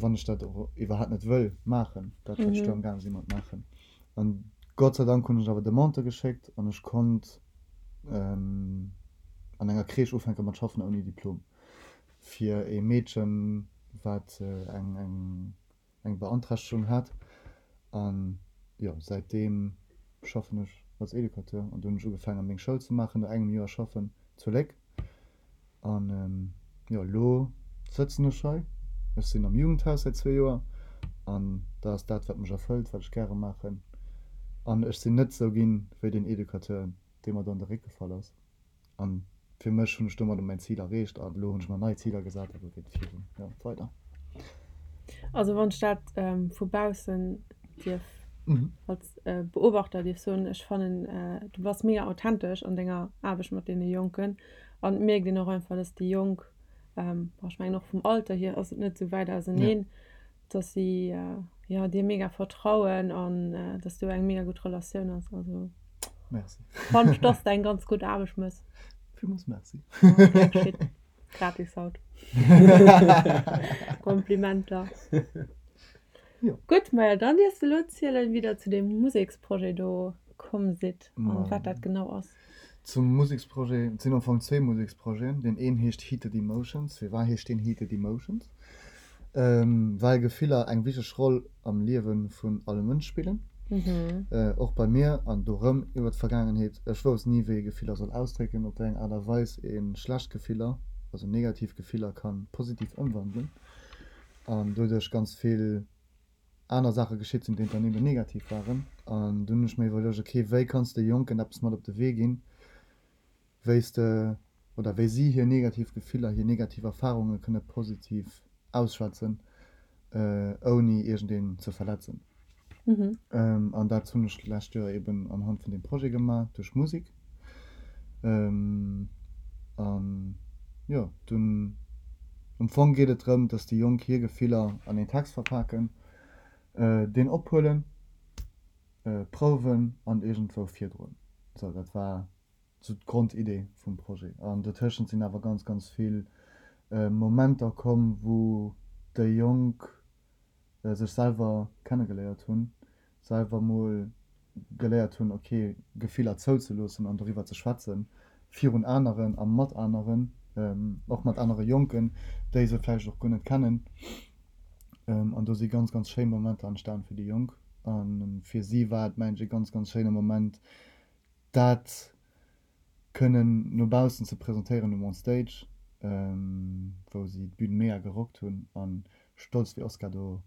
wann ech dat och iwwerhaapt net wëll maachen, dat wat ech do amgaang si mat maachen. An Gott sei Dank hunn ech awer Demande geschéckt an ech konnt an enger Crèche ufänke mat schaffen ouni Diplom. Fir ee Meedchen, wat eng eng Beanträchtegung hat. An jo, säitdeem schaffen ech als Educateur. An du hunn ech ugefaange meng Schoul ze maachen, no engem Joer schaffen zu Léck. An jo, elo sëtzen ech hei. Ech sinn am Jugendhaus säit zwee Joer an dat ass dat, wat mech erfëllt, wat ech gäre maachen. An ech sinn net esou ginn wéi deen Educateur, dee mer do an de Réck gefall ass. An fir mech hunn ech domadder mäin Zil erreecht an elo hunn ech mer nei Ziler gesat a lo geet et virun, jo, weider. Also wann ech dat vu baussen dierf als Beobachter dierf soen, ech fannen du bass mega authentesch an denger Aarbecht mat deene Jonken an et mierkt een och einfach, dass déi Jonk, bon ech mengen och vum Alter hier ass et net esou wäit auseneen, dass si jo dir mega vertrauen an dass do eng mega gutt Relatioun ass. Also Merci. Fannen ech, dass de eng ganz gutt Aarbecht mëss. Villmools Merci. Gratis haut. Komplimenter. Jo. Gutt, maja dann dierfs de elo zielen, wéi der zu deem Museksprojet do komm sidd an wat dat genau ass. Zum Museksprojet, et sinn am Fong zwee Museksprojeten. Deen een heescht Heated Emotions. Firwat heescht deen Heated Emotions? Well Gefiller eng wichteg Roll am Liewe vun all Mënsch spillen. Och bei mir, an do rëm iwwer d'Vergaangenheet, ech wousst ni wéi ee Gefiller soll ausdrécken, op wéi eng Aart a Weis ee schlecht Gefiller, also negativ Gefiller ka positiv ëmwandelen an doduerch ganz vill aner Saache geschitt sinn, déi dann eben negativ waren. An dunn hunn ech mir iwwerluecht, ok, wéi kanns de Jonken eppes mat op de Wee ginn, wéi s de oder wéi si hir negativ Gefiller, hir negativ Erfarunge kënne positiv ausschwätzen, ouni iergendeen ze verletzen. An dat hunn ech d'lescht Joer eben anhand vun deem Projet gemaach, duerch Musek. An jo, dunn am Fong geet et drëm, dass déi Jonk hir Gefiller an een Text verpaken, deen ophuelen, prouwen an iergendwou virdroen. Sou, dat war sou d'Grondidee vum Projet. An dotëschent sinn awer ganz, ganz vill Momenter komm, wou déi Jonk sech selwer kennegeléiert hunn, selwer mol geléiert hunn, ok, Gefiller zouzeloossen an doriwwer ze schwätzen, virun aneren a mat aneren, och mat anere Jonken, déi se vläicht och guer net kennen. An do si ganz, ganz schéi Momenter entstan fir déi Jonk. A fir si war et, mengen ech, e ganz, ganz schéine Moment, dat kënnen no baussen ze presentéieren um On Stage, wou si d'Bün mega gerockt hunn a stolz wéi Oscar do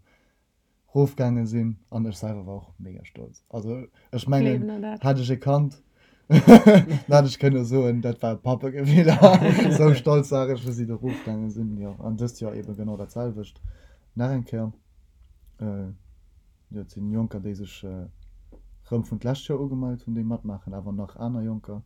rofgaange sinn. An ech selwer war och mega stolz. Also ech mengen, hätt ech e Kand, dann hätt ech kënne soen, dat war e Pappegefiller. Sou stolz war ech, wou si do rofgaange sinn. Jo, an dëst Joer eebe genau dat selwecht nach eng Kéier. Jo, et sinn Jonker, déi sech rëm vun d'lescht Joer ugemellt hunn, déi matmaachen, awer nach aner Jonker.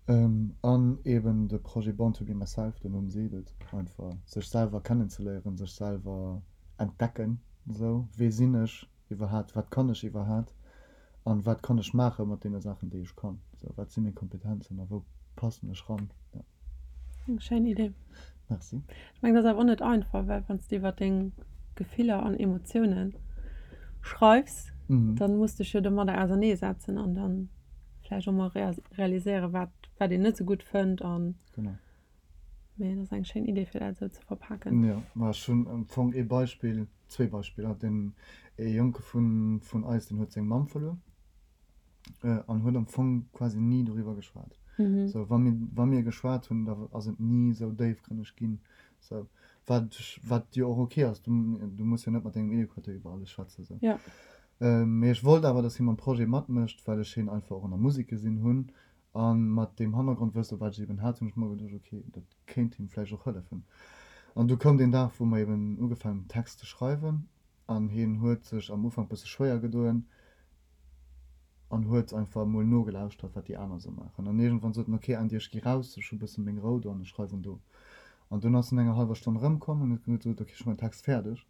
An eben de Projet Born to be myself, den Numm seet et einfach, sech selwer kennenzeléieren, sech selwer entdecken, esou, wee sinn ech iwwerhaat, wat kann ech iwwerhaat an wat kann ech maache mat deene Saachen, déi ech kann, esou, wat si meng Kompetenzen a wou passen ech ran, jo. Eng schéin Idee. Merci. Ech mengen, dat ass awer och net einfach, well wann s de iwwer deng Gefiller an Emotiounen schreifs, dann muss dech jo domadder auserneesetzen an dann vläicht och mol realiséieren, wat, wat een net esou gutt fënnt an. Genau. Mee dat ass eng schéin Idee, fir dat esou ze verpaken. Jo, ma ech hunn am Fong ee Beispill, zwee Beispiller. Den ee Jonke vun, vun eis, deen huet seng Mamm verluer. An huet am Fong quasi ni doriwwer geschwat. Sou, wa mir, wa mir geschwat hunn, da ass et ni esou déifgrënneg ginn. Sou, wat, wat jo och ok ass, du, du muss jo net mat dengem Educateur iwwer alles schwätzen, sou. Ja. Mee ech wollt awer, dass hie mam Projet matmécht, well ech hien einfach och an der Musek gesinn hunn. A mat deem Hannergrondwësse wat ech eben hat, hunn ech mer geduecht, ok, dat kéint him vläicht och hëllefen. An du koum deen Dag, wou mer eben ugefaangen hunn, Text ze schreiwen. An hien huet sech am Ufank bësse schwéier gedoen an huet einfach emol nogelauschtert, wat déi aner esou maachen. An iergendwann sot en, Ok, Andy, ech gi raus, ech hu bësse meng Rou do an ech schreiwen do. An dunn ass en no enger hallwer Stonn erëmkomm an huet gesot, Ok, ech hu mäin Text fäerdeg,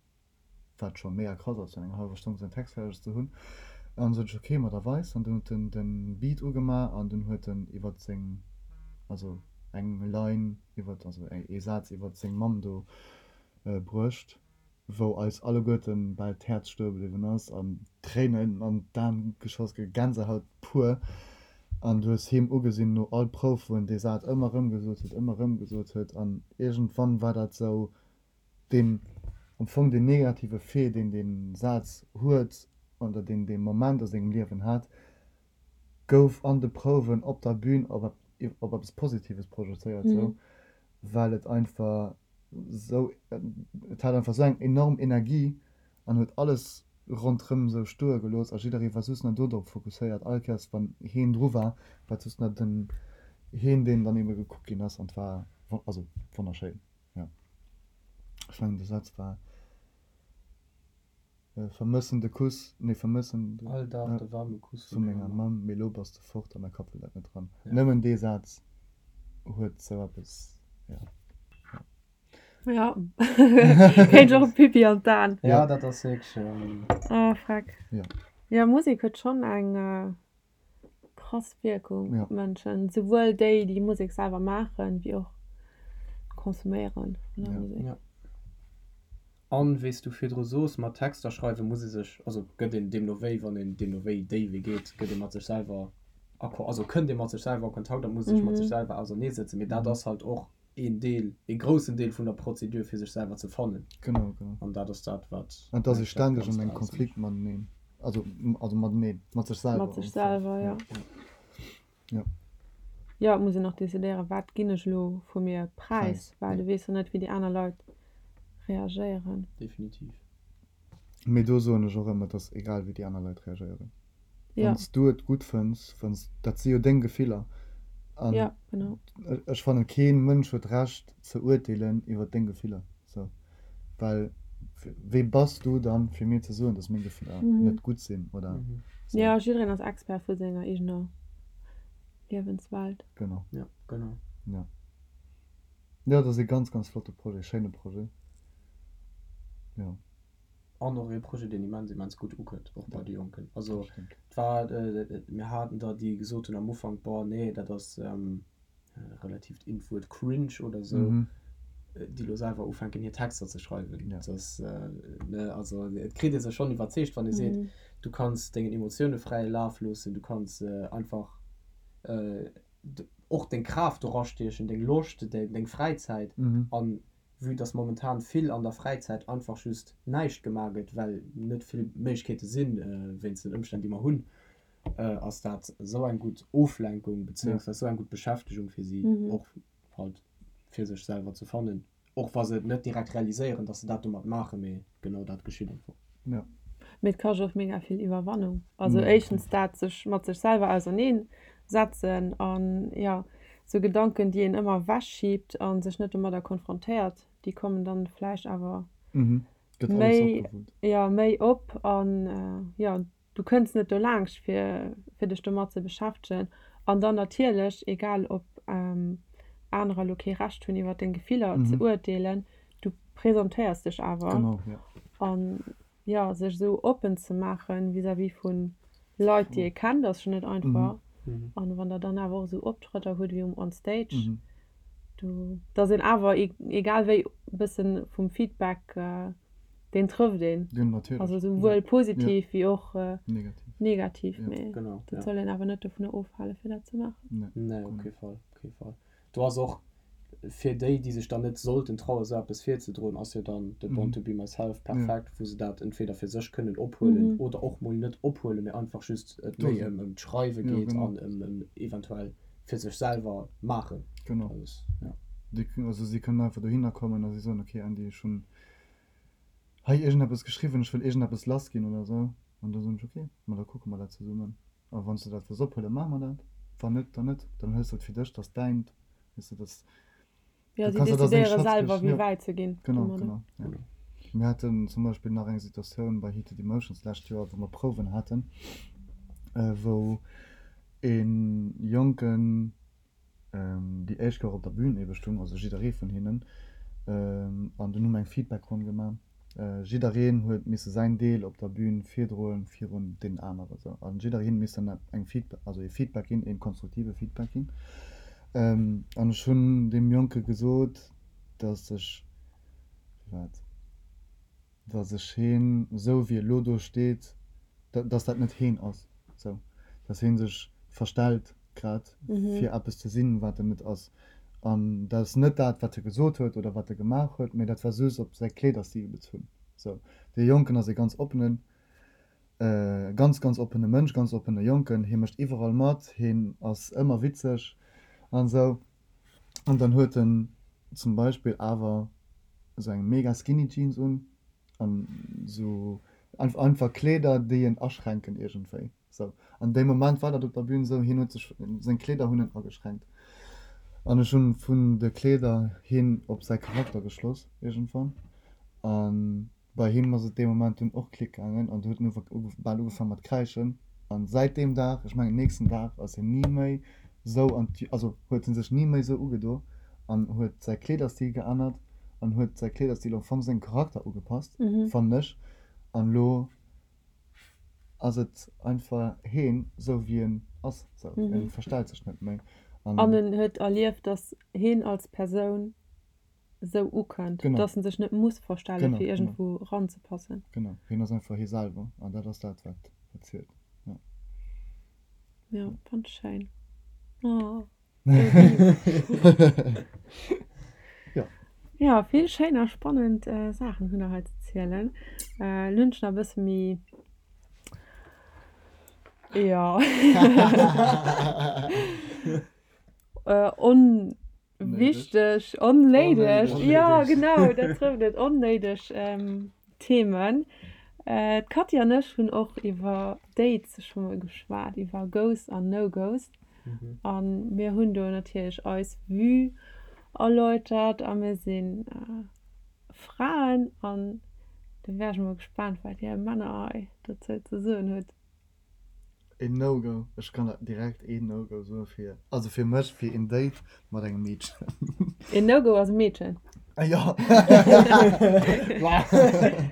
wat scho mega krass ass, fir an enger hallwer Stonn säin Text fäerdeg ze hunn. An sot ech, Ok, ma da weis. An dunn huet en de Beat ugemaach an dunn huet en iwwer seng, also eng Line iwwer, also ee Saz iwwer seng Mamm do bruecht. wou eis alleguerten bal d'Häerz stoe bliwwen ass an d'Tréinen an d'Aen geschoss ge Gänsehaut pur an du hues him ugesinn no all Prouf wou en dee Saz ëmmer erëm gesot huet, ëmmer erëm gesot huet an iergendwann war dat sou deen am Fong deen negative Fait deen dee Saz huet oder deen dee Moment a sengem Liewen hat gouf an de Prouwen op der Bühn op op eppes Positives projezéiert sou well et einfach. Sou, et hat einfach sou eng enorm Energie an huet alles ronderëm sou stoe gelooss a jidderee war just nach do drop fokusséiert. All Kéiers wann heen dru war, war et just nach den heen deen dann ebe gekuckt ginn ass an et war also wonnerschéin, jo. Ech mengen de Saz war. Vermëssen de Kuss, nee vermëssen de. All Dag de waarme Kuss vu menger Mamm. Mee lo bass de fort a mäi Kapp wëll dat net dran. Nëmmen dee Saz huet sou eppes, jo. Jo, kéint ech och e Pipi an d'Aen. Jo, dat ass wierklech. Oh freck. Jo. Jo, Musek huet schonn eng krass Wierkung op d'Mënschen, souwuel déi, déi Musek selwer maachen, wéi och d'Konsuméieren vun der Musek. Jo. An wéi s du virdru soos, mat Texter schreiwen muss ee sech, also gëtt een deemno wéi, wann een deemno wéi déi Wee geet, gëtt ee mat sech selwer a Ko, also kënnt ee mat sech selwer a Kontakt a muss sech mat sech selwer auserneesetzen. Mee dat ass halt och een Deel, ee groussen Deel vun der Prozedur fir sech selwer ze fannen. Genau, genau. An dat ass dat, wat An et ass ee ständeg an engem Konflikt mateneen, also, also mateneen, mat sech selwer. Mat sech selwer, jo. Jo. Jo, et muss een och decidéieren, wat ginn ech elo vu mir präis, well du weess jo net, wéi déi aner Leit reagéieren. Definitiv. Mee do soen ech och ëmmer, et ass egal, wéi déi aner Leit reagéieren. Wann s du et gutt fënns, wann s, dat si jo deng Gefiller. An ja, genau. ech fannen, kee Mënsch huet d'Recht ze urteelen iwwer deng Gefiller. Sou, well wee bass du dann, fir mir ze soen, dass meng Gefiller net gutt sinn oder sou. Jo, jiddereen ass Expert vu senger eegener Liewenswelt. Genau. Ja, genau. Ja. Jo, dat ass ee ganz, ganz flotte Projet, schéine Projet. Jo. An och ee Projet, deen immens, immens gutt ukënnt, och bei de Jonken. Also et war, mir haten der, déi gesot hunn am Ufank, Boah, nee, dat ass relativt in d'Wuert cringe oder esou, déi elo selwer ufänken, hir Texter ze schreiwen. Dat ass, ne, also et kritt ee sech schonn iwwerzeegt, wann ee seet, du kanns dengen Emotioune fräie Laf loossen, du kanns einfach och deng Kraaft dorastiechen, deng Loscht, deng Fräizäit an Vue dass momentan vill an der Fräizäit einfach just näischt gemaach gëtt, well net vill Méiglechkeete sinn, wéinst den Ëmstänn déi mer hunn, ass dat esou eng gutt Oflenkung beziéungsweis esou eng gutt Beschäftegung fir si, och halt fir sech selwer ze fannen, och wa se et net direkt realiséieren, dass se dat domat maachen, mee genau dat geschitt einfach. Ja. Mee et kascht och mega vill Iwwerwannung. Also éischtens dat sech mat sech selwer auserneen setzen an jo sou Gedanken déi een ëmmer ewech schiebt a sech net domadder konfrontéiert, déi kommen dann vläicht awer méi jo méi op an jo du kënns net dolaangscht fir fir dech domat ze beschäftegen. An dann natierlech, egal ob anerer elo kee Recht hunn iwwer deng Gefiller ze urteelen, du presentéiers dech awer. Genau, ja. An jo, sech esou oppen ze maachen vis-à-vis vu Leit, déi ee kennt, ass schonn net einfach. An wann der dann awer och esou Optrëtter hutt wéi um On Stage, do, dass een awer egal wéi e bëssen vum Feedback, deen trëfft een. Jo, natierlech. Also souwuel positiv wéi och negativ. Negativ, mee dat soll een awer net dovunner ofhalen, fir dat ze maachen. Nee, op kee Fall, op kee Fall. Do ass och fir déi, déi sech dann net sollten trauen, esou eppes virzedroen, ass jo dann de Born to be myself perfekt, wou se dat entweder fir sech kënnen ophuelen oder och mol net ophuelen, mee einfach just et méi ëm ëm d'Schreiwe geet an ëm ëm eventuell fir sech selwer maachen. Genau. Ja. Déi, also si kënnen einfach dohinner kommen a si soen, okay Andy, ech hunn hei iergendeppes geschriwwen, ech wëll iergendeppes lassginn oder esou. An da soen ech, okay, ma da kucke mer dat zesummen. A wann s de dat wëlls ophuelen, maache mer dat. Wann net, dann net. Dann hues de et fir dech, dat ass däint. Weess de, dat Jo, si decidéiere selwer, wéi wäit se ginn. Genau, genau, ja. Mir haten zum Beispill nach eng Situatioun bei Heated Emotions d'lescht Joer, wou mer Prouwen haten, wou e Jonken déi éischt Kéier op der Bühn ebe stung, also jidderee vun hinnen, an dunn hu mer eng Feedbackronn gemaach. Jiddereen huet misse säin Deel op der Bühn virdroen virun deenen anere sou. An jiddereen misst dann eng Feedback, also ee Feedback ginn, ee konstruktive Feedback ginn. An ech hunn deem Jonke gesot, datt ech, wéi war et, datt ech heen, esou wéi e lo do steet, datt dat net heen ass, sou, datt hee sech verstellt grad fir eppes ze sinn, wat en net ass. An dat ass net dat, wat e gesot huet oder wat e gemaach huet, mee dat war just op säi Kleederstil bezunn. Sou, dee Jonken ass ee ganz oppenen, ganz, ganz oppene Mënsch, ganz oppene Jonken. Hie mécht iwwerall mat, hien ass ëmmer witzeg an esou. An dann huet en zum Beispill awer. Esou eng mega skinny Jeans un an esou einfach Kleeder déi en aschränken iergendwéi sou. An dee Moment war dat op der Bühn esou, hien huet sech, seng Kleeder hunn en ageschränkt an ech hunn vun de Kleeder hin op säi Charakter geschloss iergendwann an bei him ass et dee Moment dunn och Klick gaangen an du huet en bal ugefaang mat kräischen an säit deem Dag, ech mengen nächsten Dag ass hien ni méi sou an d'Jü also huet en sech ni méi sou ugedo an huet säi Kleederstil geännert an huet säi Kleederstil am Fong sengem Charakter ugepasst, fannen ech. An lo ass et einfach heen sou wéi en ass, sou en verstellt sech net méi an. An en huet erlieft, dass heen als Persoun sou ukënnt, dass en sech net muss verstellen, fir iergendwou ranzepassen. Genau, heen ass einfach hee selwer an dat ass dat wat zielt. Ja. Ja, fand ech schéin. Oh, Ja. Ja, vill schéin a spannend Saachen hunn der hei ze zielen. Lo hunn ech nach e bësse méi, jo, on. Wichteg, onnéideg, jo genau, dat trëfft et, onnéideg Themen. D'Cathy an ech hunn och iwwer Dates scho mol geschwat, iwwer Goes an No-Goes. A mir hunn do natierlech eis Vue erläutert a mir si Fraen an do wär ech mol gespaant, wat dir Männer hei dozou ze soen hutt. Een No-Go, ech kann der direkt een No-Go soen fir, also fir mech, fir een Date mat engem Meedchen. Een No-Go ass e Meedchen? Ah jo.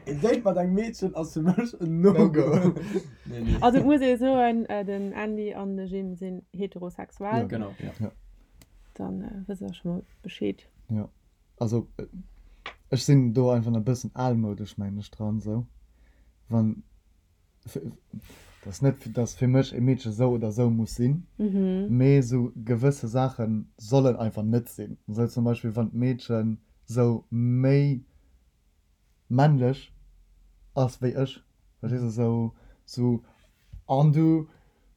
Een Date mat engem Meedchen ass fir mech en No-Go. Nee, nee. Also et muss ee soen, den Andy an de Jim sinn heterosexuell. Jo, genau, jo. Dann wësst der scho mol Bescheed. Jo, also ech sinn do einfach nach e bëssen almoudesch, mengen ech, dran esou, wann. Dat ass net, dass fir mech e Meedche sou oder sou muss sinn, mee sou gewësse Saache sollen einfach net sinn. Sou zum Beispill wann d'Meedche sou méi männlech ass wéi ech, verstees de, sou sou an du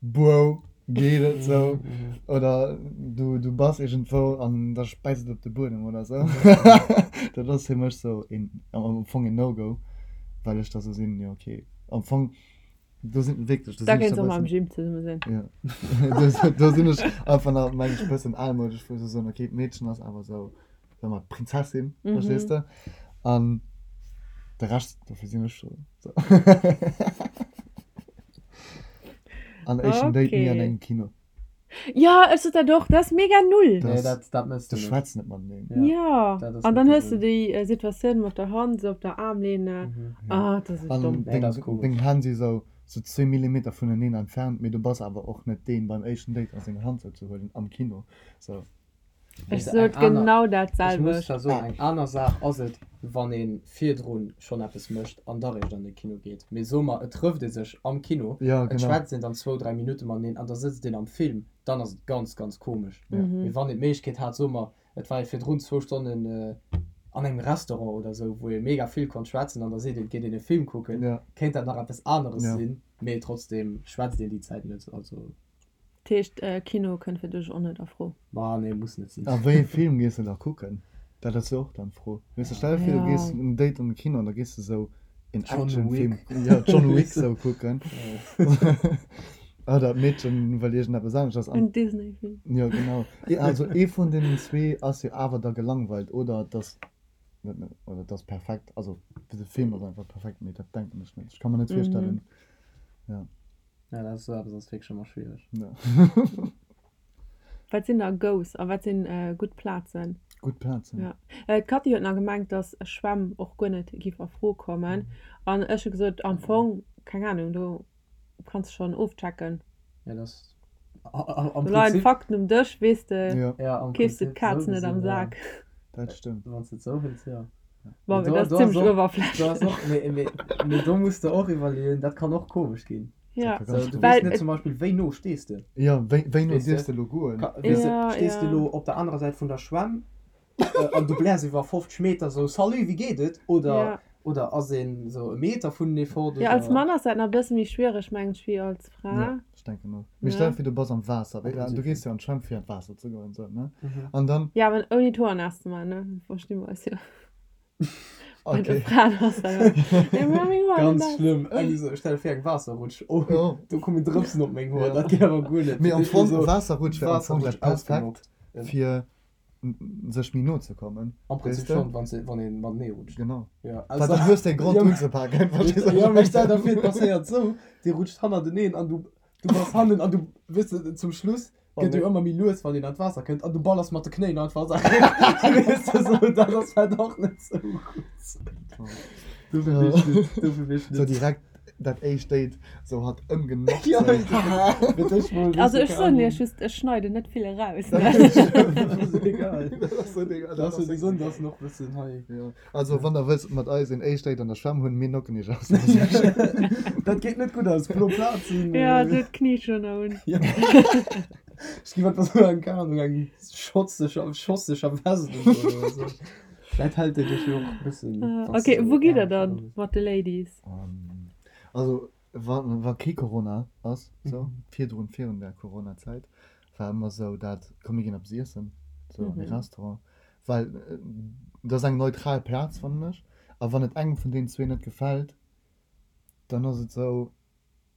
Bro geet et sou oder du du bass iergendwou an da späizt et op de Buedem oder sou. Dat ass fir mech sou een am Fong een No-Go, well ech da sou sinn, jo okay, am Fong do sinn wierklech, do Da sinn ech kéints och mam Jim zesumme sinn. Jo, do do sinn ech einfach nach meng ech bëssen almoudesch, wou ech sou soen, okay, d'Meedchen ass awer sou, soe mer d'Prinzessin, verstees de, an de Rescht, dofir sinn ech do. An éischten Date ni an engem Kino. Jo, ech sot dat och, dat ass mega null. Nee, dat, dat mëss du net. Du schwätz net mateneen. Jo, an dann hues du déi Situatioun mat der Hand esou op der Aarmlehne. Ah, dat ass esou domm. An deng, deng Hänn si sou, sou zwee Millimeter vuneneen entfernt, mee du bass awer och net deen beim éischten Date a seng Hand sou ze huelen am Kino. Sou. Ech sot genau dat Ech muss zwar soen, eng aner Saach ass et, wann ee virdru schonn eppes mécht an da réischt an de Kino geet. Mee soe mer, et trëfft ee sech am Kino, et schwätzt een dann zwou, dräi Minutte mateneen an da sëtzt een am Film, dann ass et ganz, ganz komesch. Mee wann een d'Méiglechkeet hat, soe mer, et war ee virdrun zwou Stonnen an engem Restaurant oder esou, wou ee mega vill konnt schwätzen an da seet een, et geet een e Film kucken, kéint dat nach eppes aneres sinn, mee trotzdeem schwätzt een déi Zäit net. Also. Dat heescht Kino kënnt fir dech och net a Fro? Ma nee, muss net sinn. A wéi ee Film gees de da kucken? Dat ass jo och dann d'Fro. Weess de, stell der vir du gees en Date an de Kino an da gees de sou een Actionfilm, jo John Wick sou kucken. Oder d'Meedchen wëll iergendeppes aneschters an. En Disney-Film. Jo genau. Also ee vun deenen zwee ass jo awer da gelangweilt oder et ass net, oder et ass perfekt. Also de Film ass einfach perfekt, mee dat denken ech net. Ech ka mer net virstellen, jo. Ja, dat ass esou eppes ass wierklech ëmmer schwiereg. Ja. Wat sinn da Goes a wat sinn gutt Plazen? Gutt Plazen? Ja. D'Cathy huet nach gemengt, dass Schwämm och guer net giff a Fro kommen. An ech hu gesot, am Fong, keng Ahnung, do kanns de schonn ofchecken. Ja, dat ass am Do leien Prinzip. d'Fakten um Dësch, weess de, Ja, am keefs de Prinzip d'Kaz esou net am gesinn, ja. Sak. Dat stëmmt. Wann s de et esou hëls, jo. Bon, Mee mee do, dat ass do ass zimmlech och, do ass uewerflächlech. och, mee, mee, mee do muss de och iwwerleeën, dat kann och komesch ginn. Ja, Dat ka ganz So, du komesch weess well net et, zum Beispill, wéi no stees de? Jo, wéi, wéi no Weess de? dierfs de elo goen? Ka, weess de, ja, stees de ja. elo op der anerer Säit vun der Schwämm an du bläers iwwer 50 Meter sou, Salut, wéi geet et? Oder, Ja. oder ass een sou e Meter vunenee fort, Ja, als oder? Mann ass dat nach e bësse méi schwiereg, mengen ech, wéi als Fra. Ja, ech denken och. Mee stell Ne? dir vir, du bass am Waasser, Am wéi, du Prinzip gees schon. jo an d'Schwämm fir an d'Waasser ze goen, sou, ne? An dann. Ja, awer ouni d'Hoer naass ze maachen, ne? Versti mer eis jo. Bei de Fraen ass dat Ganz schlëmm. Eng esou, stell der vir eng Waasserrutsch, oh do kommen Drëpsen op meng Hoer, dat geet awer guer net. Mee am Fong, Waasserrutsch wär am Fong dat perfekt fir sech méi no ze kommen. Am Prinzip schonn, wann se, wann een matenee rutscht. Genau. Ja, Well dann hues de e Grond unzepaken, verstees du? Jo, mee stell der vir et passéiert esou, dir rutscht hannerteneen an du, du bass hannen an du, weess de, zum Schluss gëtt jo ëmmer méi lues, wann een an d'Waasser kënnt an du ballers mat de Knéien einfach an d'Waasser. Weess de, sou, dat ass halt och net sou gutt. Dofir weess ech net, dofir weess ech net. Sou direkt dat éischt Date, sou hatt ëmgenockt. Ja, fir d'éischt mol, weess Also de, ech keng soen Ahnung. iech just, ech schneiden net vill eraus, Dat ne? ass egal. Dat ass sou egal. Dat ass jo déi Sënn, dass en och bëssen hei. Jo, also wann der wëllt mat eis een éischt Date an der Schwämm hunn, mir nocken iech aus. Dat geet net gutt aus, blo Plazen. Ja, do d'Knie schon nach un. Ja. Ech gi wat sou eng, keng Ahnung, eng schotzeger, schosseger Vest un oder sou. Vläit hält déi dech jo och e bëssen, wann s Ok, de sou wou gitt der Äerm dann voll hues. mat de Ladies? Also wa wa kee Corona ass, sou virdrun, virun der Coronazäit, war ëmmer sou dat, komm mir ginn eppes iessen, sou an e Restaurant, well dat ass eng neutral Plaz fannen ech, a wann et engem vun deenen zwee net gefält, dann ass et sou,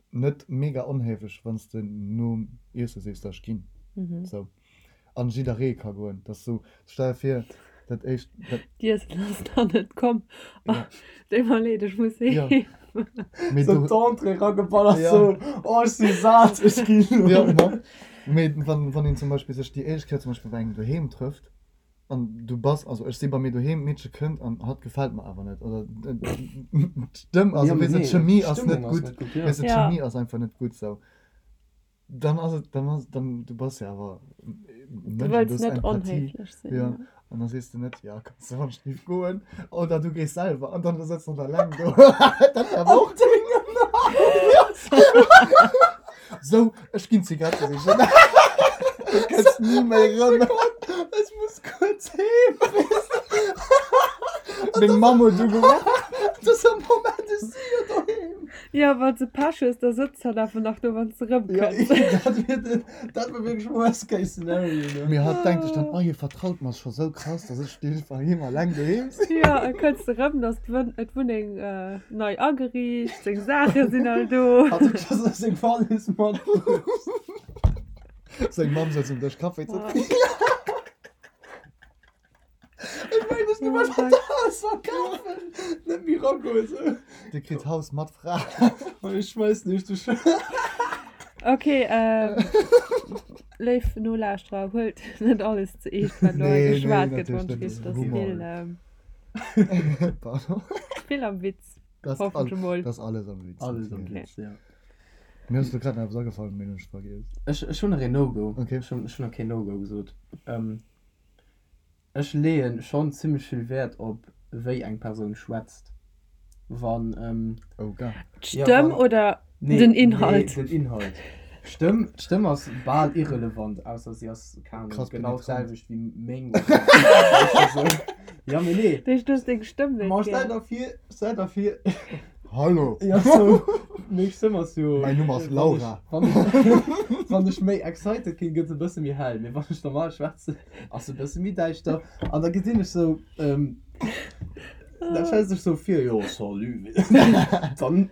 net mega onhéiflech wann s de nom Iesse sees da ech ginn sou an jidderee ka goen dat ass sou stell der vir dat éischt dat D'Iessen ass nach net komm ja deet mer leed ech muss ja heem. mee Sou du d'Entrée erageballert ja sou oh ech si sat ech ginn elo. ja ma mee wann wann een zum Beispill sech déi éischt Kéier zum Beispill bei engem doheem trëfft An du bass, also ech si bei mir doheem, d'Meedche kënnt an hatt gefält mer awer net oder d'Stëmm, also weess de, d'Chemie ass net gutt, weess de, d'Chemie ass einfach net gutt sou. Dann ass et, dann ass, dann, du bass jo awer e Du Mënsch an du wëlls hues net Empathie, onhéiflech sinn, jo, jo. an da sees de net, jo, kanns du wann ech goen oder du gees selwer an dann sëtzt hatt eleng do. Dat wär awer och. Sou, ech ginn Zigarette sichen. Du kënns ni méi erëm. Ech muss kuerz heem. Meng Mamm huet ugeruff. Dat ass am Moment, ech si jo doheem. Jo, wann s de Pech hues, da sëtzt hatt awer nach do, wann s de Ja, erëmkënns. dat wier den, dat wier wierklech worst case scenario, ne? Mee hatt denkt sech dann, oh, hie vertraut mer scho sou krass, dass ech dee bei him alleng doheem sinn. Jo, e kënns de rëm, da ass d'Wunneng nei ageriicht, seng Saache sinn all do. Hat huet scho sou seng Wallis matbruecht. Seng Mamm sëtzt um Dësch Kaffi ze drénken. Ech mengen, ech gi mer dat Haus verkafen, net méi ragoen sou. Dir kritt d'Haus mat Fra. Ech schmeissen iech de Schlëssel. Ok, léif Nolauschterer, huelt net alles ze eescht, wat elo hei Nee, nee, geschwat gëtt, natierlech wann net, ech dat weess, ass dass Humor. vill, Pardon. vill am Witz, Dat ass hoffen all, ech emol. dat ass alles am Witz, Alles am natierlech. Witz, ja. Mir ass elo grad nach eppes agefall, mee hunn ech vergiess. Ech, ech hunn nach een No-Go. Okay. Ech hunn, ech hunn nach keen No-Go gesot. Ech leeën schonn zimmlech vill Wäert op wéi eng Persoun schwätzt. Wann Oh ga. D'Stëmm oder den Inhalt? Nee, den Inhalt. D'Stëmm, d'Stëmm ass bal irrelevant, ausser si ass, keng Ahnung, Krass genau penetrant. d'selwecht wéi meng oder weess de sou. Ja, mee nee. Dech, du hues deng Stëmm net Ma stell gär. der vir, stell der vir. Hallo! Ja, sou, meng Stëmm ass jo. Mäin Numm ass Laura. Wann ech, wann ech méi excited ginn, gëtt se e bësse méi hell, mee wann ech normal schwätzen, ass se e bësse méi däischter. An da gesinn ech sou, da schwätze ech sou vir, jo, salut. Dann,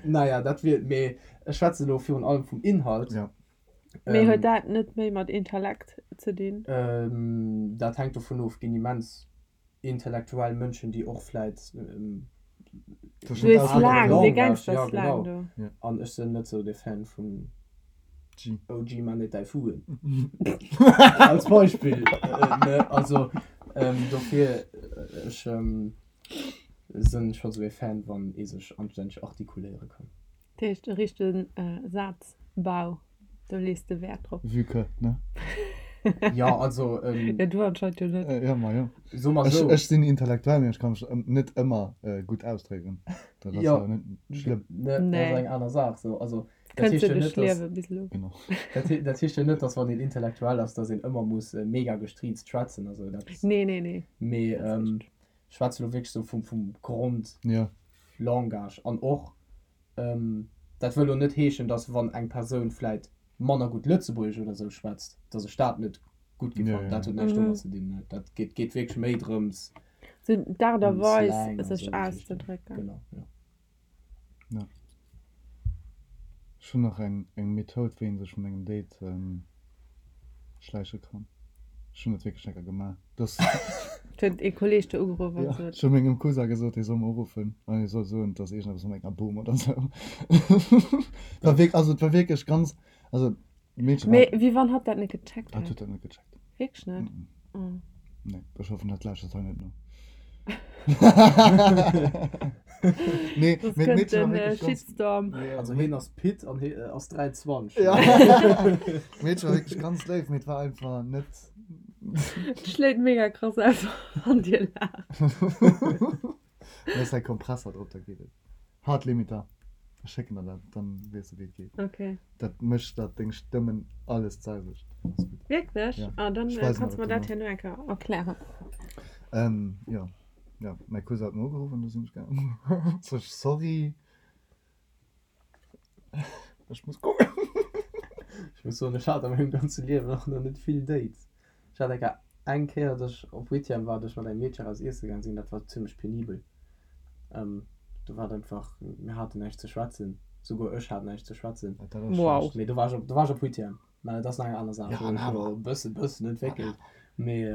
naja, dat wier, mee ech schwätze elo virun allem vum Inhalt. Ja. Mee huet dat net méi mat Intellekt ze dinn? Dat hänkt dovun of, ginn immens intellektuell Mënschen, déi och vläit an ech sinn net sou de Fan vun OG man net däi Fuen als Beispill ne also dofir ech sinn scho sou ee Fan wann ee sech anstänneg artikuléiere kann. Dat heescht e richtegen Sazbau, do lees de Wäert drop. Vue que, ne? Jo, also. Jo, du anscheinend jo net. Jo, ma jo. So mer sou. Ech sinn intellektuell, mee ech ka mech net ëmmer gutt ausdrécken. Dat ass Jo. awer net schlëmm. Ne, dat ass eng aner Saach. Sou, also, dat Kënns heescht de jo duerch net, dass. d'Liewe bis elo. Genau. Dat, dat heescht jo net, dass wann een intellektuell ass, dass een ëmmer muss mega gestriizt schwätzen. Also dat. Nee, nee, nee. Mee Dat ass richteg. ech schwätze lo wierklech sou vum, vum Grond. Jo. Langage. An och, dat wëll elo net heeschen, datt wann eng Persoun vläit manner gutt Lëtzebuergesch oder esou schwätzt, datt ech dat net gutt gi fannen. Dat huet näischt domat ze dinn. Dat geet, geet wierklech méi drëms. Sou d'Aart a Weis, sech auszedrécken. Genau, jo. Ja. Ech hunn nach eng eng Methoud, wéi een sech vun engem Date schläiche kann. Ech hunn dat wierklech eng Kéier gemaach. Dass. Huet ee Kolleeg der ugeruff an Ja, sot. ech hu mengem Cousin gesot, hie soll mer uruffen an hie soll soen, et ass iergendeppes mat menger Bom oder sou. War wierk, also et war wierklech ganz, also d'Meedche war. Mee wéi wann hatt dat net gecheckt Hatt hätt? huet dat net gecheckt. Wierklech net? Mm. Nee, ech hoffen dat lauschtert hei net no. Nee, Soss mee kënnt d'Meedchen war den wierklech ganz. Shitstorm. Ja, Also hien ass Pit an hie ass 23. Ja. D'Meedchen war wierklech ganz léif, mee et war einfach net. Et schléit mega krass aus wann dir laacht. Da ass hei Kompresser drop, da geet et. Hard Limiter. Ech schécken der dat, dann weess de wéi et geet. Okay. Dat mécht dat deng Stëmmen alles d'selwecht. Ass gutt. Wierklech? Ja. Ah, dann Ech weisen kanns der du mer dat dat dono. herno eng Kéier erklären. Ähm, jo. Jo, mäi Cousin huet mer ugeruff an du sinn ech gaangen. Sot ech, sorry. Ech muss goen. Ech muss soen, ech hat a mengem ganze Liewen och nach net vill Dates. Ech hat eng Kéier, eng Kéier, datt ech op Huitième war, datt ech mat engem Meedche eraus iesse gaang sinn. Dat war zimmlech penibel. Do war et einfach, mir haten näischt ze schwätzen. Souguer ech hat näischt ze schwätzen. Dat ass Wow. schlecht. Mee do war ech op, do war ech op Huitième. Mä dat ass nach eng aner Saach. Ja, Do hunn an ech awer. elo e bësse, bëssen entwéckelt. Mee.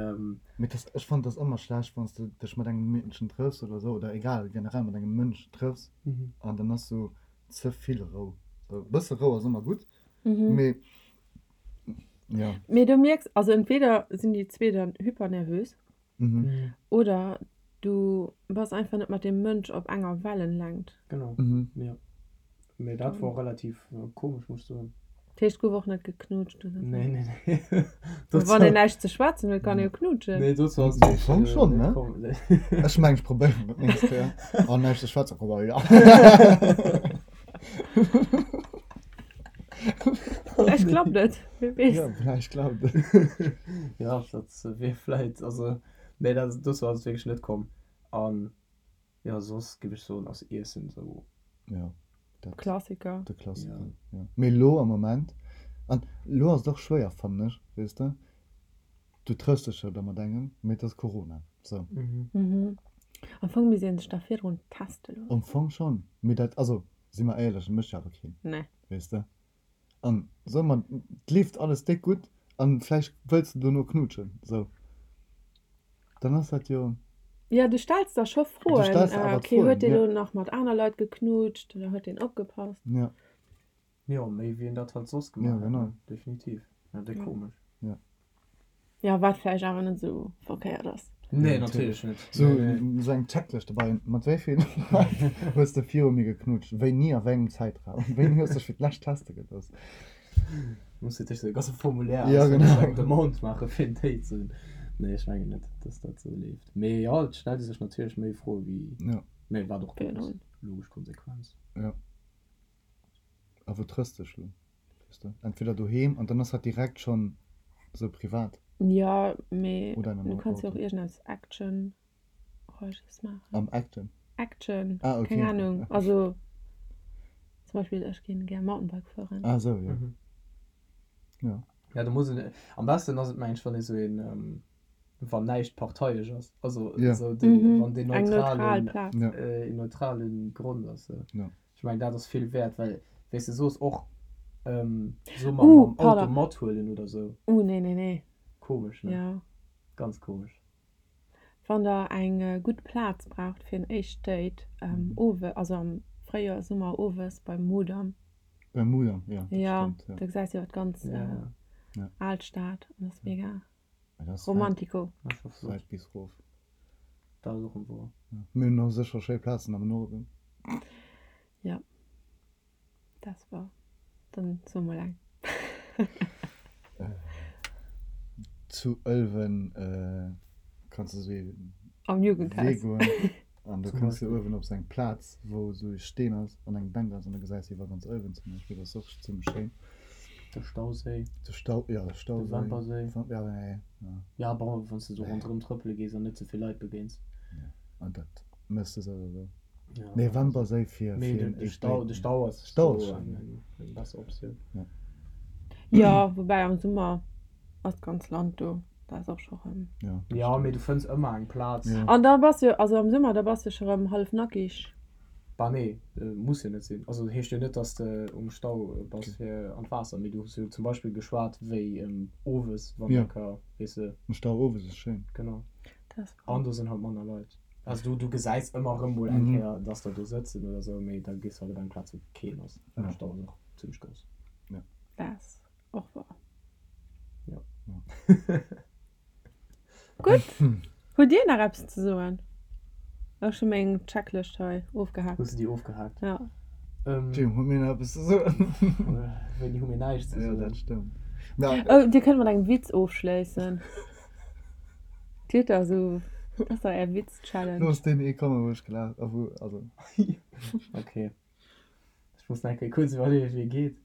Mee dat, ech fannen, dat ass ëmmer schlecht, wann s de dech mat engem Meedchen trëffs oder esou, oder egal, generell mat engem Mënsch trëffs an dann ass sou ze vill Rou. Sou e bësse Rou ass ëmmer gutt, mee jo. Mee du mierks, also entweder sinn déi zwee dann hypernervös oder du bass einfach net mat deem Mënsch op enger Wellenlängt. Genau, jo. Mee dat wor relativ komesch, muss ech soen. Dat heescht, gouf och net geknutscht oder sou? Nee, nee, nee. Wann een näischt ze schwätzen huet, kann ee jo knutschen. Nee, dozou ass et Am Fong schonn, ne? komm. Ech mengen, ech probéieren et nächst Kéier. An näischt ze schwätzen, komm, ja. Vläicht klappt et, wie weess. Ja, vläicht klappt et. Ja, dat wier vläicht, also, nee, dat, dozou ass et wierklech net komm. An Jo, soss giff ech soen ass Iessen sou. Jo, dat. Klassiker. De Klassiker, jo. Mee lo am Moment, an lo ass et och schwéier, fannen ech, weess de, du trëffs dech jo da mat engem, mee et ass Corona, sou. Mhm. Am Fong misst een sech da virdrun teste loossen. Am Fong schonn, mee dat, also si mer éierlech, dat mécht jo awer keen, Nee. weess de. An soe mer, et leeft alles déck gutt an vläicht wëlls de dono knuutschen, sou, dann ass dat jo. Jo, du stells der scho Du Froen. stells der awer Ok, d'Froen, huet deen jo. elo nach mat aner Leit geknutscht oder huet deen opgepasst? Ja. Jo, méi wéi een dat halt soss Ja, gemaach hätt, genau. ne? Definitiv. Ja, déck komesch. Ja. Jo, wat vläicht awer net esou verkéiert ass. Nee, natierlech net. Sou sou eng Checklëscht dobäi, mat wéi vill Leit hues de viru mir geknutscht, wéini a wéi engem Zäitraum, wéini hues dech fir d'lescht teste gelooss? Muss fir d'éischt e ganze Formulaire Ja, ausfëllen, genau. eng Demande maache fir en Date ze hunn. Nee, ech mengen net, dass dat sou leeft. Mee jo, et stellt ee sech natierlech méi Froe wéi, Ja. mee wat och gutt ass, Virdrun. logesch Konsequenz. Ja. A wou trëffs dech lo? Weess de, entweder doheem an dann ass dat direkt schonn sou privat. Jo, mee Oder an du engem kanns jo och Auto. iergendeppes Actionreiches maachen. Am Action? Action, Ah, okay. keng Ahnung. Also zum Beispill ech ginn gär Mountainbike fueren. Ah sou, jo. Jo. Ja, do muss een, am besten ass et mengen ech, wann ee sou een, wann näischt parteiesch ass, also Ja. sou den, Mhm, wann deen eng neutral neutralen, Plaz. Ja. een neutralen Grond ass. Sou. Ja. Ech mengen dat ass vill wäert, well wéi s de soos och soe mer Uh, mam Auto pardon. mathuelen oder sou. Uh, nee, nee, nee. Komesch, ne? Ja. Ganz komesch. Wann der eng gutt Plaz braucht fir en éischt Date, owe, also am Fréijoer, Summer owes beim Mudam. Beim Mudam, jo, dat Ja, stëmmt, jo. do gesäis de jo d'ganz Ja. Alstad an ass mega Mä dat ass wäit, romantico. Dat ass scho flott. wäit bis rof. Dat ass och en woer. Ja. Mir hunn och sécher schéi Plazen am Norden. Ja, dat war dann so mol eng. Zu Ëlwen kanns de sou ee Am Jugendhaus. Wee goen an do kënns de uewen op sou eng Plaz, wou sou e Steen ass an eng Bänk ass an da gesäis de iwwer ganz Ëlwen zum Beispill. Dat ass och zimmlech schéin. De Stauséi. De Stau, jo, de Stauséi. De Wemperséi. Ja, nee, ja. Ja, bon, wann s de sou ronderëm trëppele gees an net ze vill Leit begéins. Ja, an dat méchs de souwisou. Ja. Nee, Wemperséi fir, Mee fir de, en de éischt Stau, Date. de Stau ass Stau ass sou schéin, eng, ja. eng besser Optioun. Ja. Jo, woubäi am Summer ass d'ganz Land do. Da ass och scho rëm. Ja, Ja, mee du fënns ëmmer eng Plaz. Ja. An da bass jo, also am Summer, da bass de scho rëm hallef nackig. Bah nee, muss jo net sinn. Also heescht jo net, dass de um Stau bass fir an d'Waasser, mee du hues jo zum Beispill geschwat wéi owes, wann Ja. der ka, weess de. Um Stau owes ass schéin. Genau. Dat ass cool. An do sinn halt manner Leit. Also du, du gesäis ëmmer erëm mol eng Mhm. Kéier, dass der do sëtzen oder sou, mee da gees de halt op eng Plaz wou keen ass, well Ja. de Stau ass och zimmlech grouss. Dat ass och wahr. Ja. Gutt. Hutt Dir nach eppes ze soen? Ech hu meng Checklëscht hei ofgehaakt. Hues de déi ofgehaakt? Ja. Ähm, Jim, hu mir nach eppes ze soen? Wéini hu mir näischt ze Ja, soen? dat stëmmt. Na, Oh, Dir kënnt mat engem Witz ofschléissen. Dir hutt da esou, dat ass da Är Witz-Challenge. Looss deen ee kommen, wou ech gelaacht, a wou, also. Okay. Ech muss nach eng Kéier kuerz iwwerleeën, wéi e geet.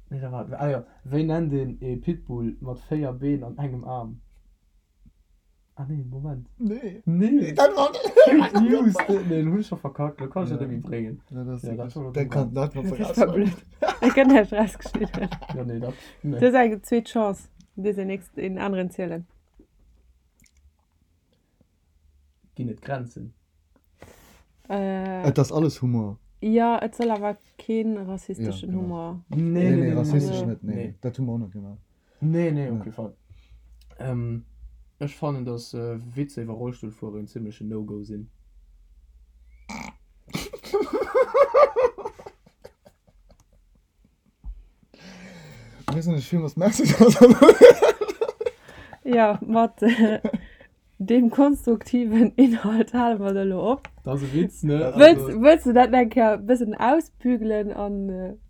Nee, da war, ah jo, wéi nennt een ee Pitbull mat 4 Been an engem Aarm? Ah nee, Moment. Nee. Nee. Dat war Fake News. Nee, lo hunn ech scho verkackt, lo kann ech dat net méi bréngen. Ja, dat ass Ja, dat war lo dat kann dat war Dat war blöd. Dat gëtt näischt rausgeschnidden. Ja, nee, dat, nee. Du hues eng zweet Chance. Du dierfs een nächst een aneren zielen. Ginn et Grenzen? Äh. Et ass alles Humor. Jo, et soll awer kee rassisteschen Ja, genau. Humor. Nee, Nee, nee, nee, nee, rassistesch nee, net, nee. nee. Dat hu mer och net gemaach. Nee, nee, op Ja. kee Fall. Ähm, ech fannen, dass Witzer iwwer Rollstullfuerer en zimmlechen No-Go sinn. Mir sinn ech villmools Merci, dass der Ja, mat deem konstruktiven Inhalt hale mer et elo op. Dat ass e Witz, ne? Wëlls, wëlls du dat nach eng Kéier e bëssen ausbügelen an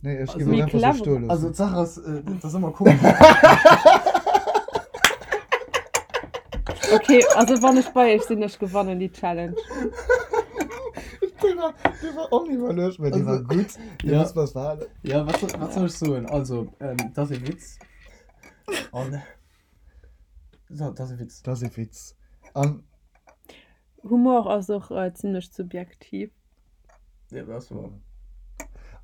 Nee, ech Also- géif et méi einfach sou clever? stoe loossen. Also d'Saach ass, dat ass ëmmer komesch. Okay, also wann ech bei iech sinn, ech gewannen déi Challenge. Dee war, dee war oniwwerluecht, mä dee war gutt. Dee Ja. muss mer behalen. Ja, wat soll, wat soll ech soen? Also, ähm, dat ass e Witz. An so, dat ass e Witz. Dat ass e Witz. An Humor ass och äh, zimmlech subjektiv. Ja, dat ass wahr.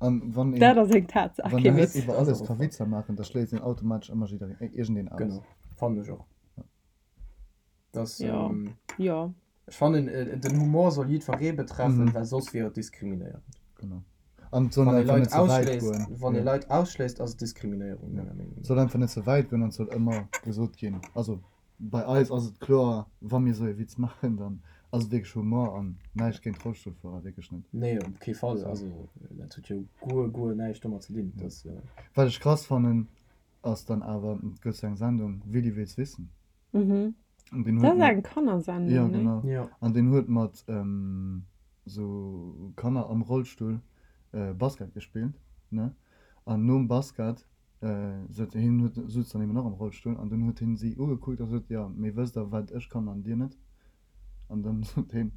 An wann een, Dat ass eng Tatsaach, wann kee een net Witz. iwwer Dat ass alles och ka wahr. Witzer maachen, da schléisst een automatesch ëmmer jiddereen, äh, iergendeen aus. Genau, fannen ech och. Das, Ja. ähm, Ja. ech fannen, äh, den Humor soll jiddweree betreffen, Mhm. well soss wier et diskriminéierend. Genau. An et soll Wann ee einfach Leit net ze wäit ausschléisst, goen. wann ee Ja. Leit ausschléisst, ass et Diskriminéierung, Ja. menger Meenung Et no. soll einfach net ze wäit goen an et soll ëmmer gesot ginn, also bei eis ass et kloer, wa mir esou ee Witz maachen, dann ass et wierklech Humor an näischt géint Rollstullfuerer, wierklech net. Nee, op kee Fall. Also dat huet jo guer, guer näischt domat ze dinn. Dat, Wat ech krass fannen, ass dann awer, et gëtt sou eng Sendung, Willi will's wissen. Mhm. An deen Dat huet ass mat, eng Kannersendung, jo nee? genau, ja. an deen huet mat sou Kanner am Rollstull Basket gespillt, ne, an nom Basket sot hien, huet, sutz dann eben och am Rollstull, an dunn huet hien si ugekuckt a sot, jo mee wësst der wat ech kann an dir net? An dann sot hien,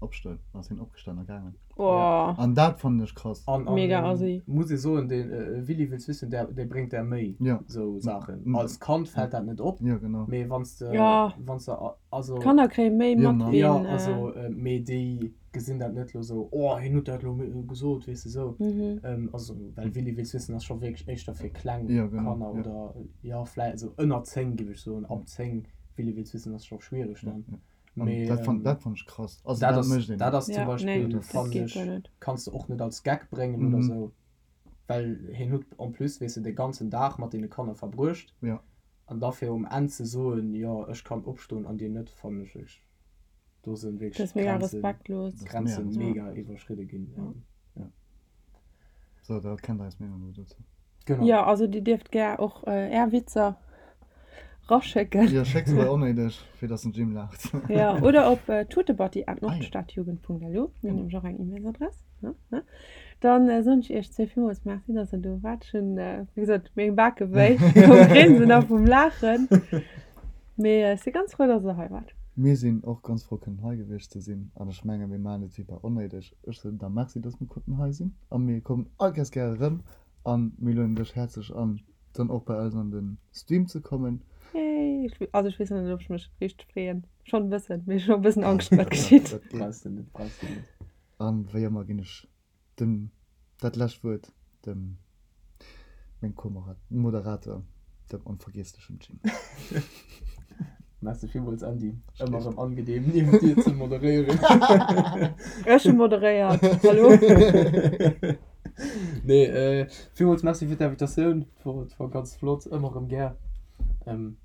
opstoen, an ass hien opgestan a gaangen. Oh. An dat fannen ech krass. An, an Mega ähm, assi. muss ee soen, den äh, Willi will's wissen, der, dee bréngt der méi Ja. sou Saachen. Mm. Als Kand fält dat net op, Ja, genau. mee wanns de, Ja. wanns de, also. D'Kanner kréie méi Ja, mat Mann. wéi Ja, en, äh, also, äh, mee déi gesinn dat net lo sou, oh, hien huet dat lo gesot, weess de sou. Mhm. Ähm, also, well Willi will's wissen ass scho wierklech éischter fir kleng Ja, genau, Kanner ja. oder, ja, vläi also ënner 10 géif ech soen, ab 10 Willi will's wissen ass scho schwiereg Ja, dann. ja. An Mee, dat fand, ähm, dat fand ech krass. Also dat dat ass, mécht een dat net. ass zum Ja, nee, Beispill, dat fannen geet ech, guer net. kanns de och net als Gag bréngen oder Mhm. sou, well hien huet en plus, weess de, de ganzen Dag mat deene Kanner verbruecht. Ja. An da fir um Enn ze soen, jo, ech kann opstoen an dir net, fannen ech wierklech, do sinn Dat wierklech ass mega d'Grenzen, respektlos. Dat ass d'Grenze mega mega respektlos. iwwerschridde ginn. Ja. Ja. So, da kennt der eis Meenung elo dozou. Genau. Jo, also dir dierft gär och är Witzer raschécken. Jo, schéck se bei Onnéideg, fir dass den Jim laacht. Jo, oder op tutebatti@nordstadjugend.lu. Mir hunn nämlech och eng E-Mailsadress. Dann soen ech iech zwéi villmools Merci, dass der do waart. Ech hunn, wéi gesot, meng Bake wéi vum Grinsen a vum Laachen. Mee ech si ganz frou, dass der hei waart. Mir sinn och ganz frou, kënnen hei gewiescht ze sinn. An ech menge mir maachen et wéi bei Onnéideg. Ech soen da Merci, dass mir konnten hei sinn. A mir kommen all Kéiers gär erëm. A mir lueden dech häerzlech an, dann och bei eis an de Stream ze kommen. Yay! Also ech weess nach net, ob ech mech richteg freeën. Schonn e bëssen, mee ech hunn och e bëssen Angscht, wat geschitt. Dat geet. Brauchs de net, brauchs de net. An wéi ëmmer ginn ech dem dat lescht Wuert dem. Meng Co-Moderator, dem onvergiesslechem Jim. Merci villmools Andy, ëmmer erëm angenehm niewent dir ze moderéieren. Ech hu moderéiert, hallo. Nee, villmools Merci fir d'Invitatioun, et war ganz flott, ëmmer erëm gär. An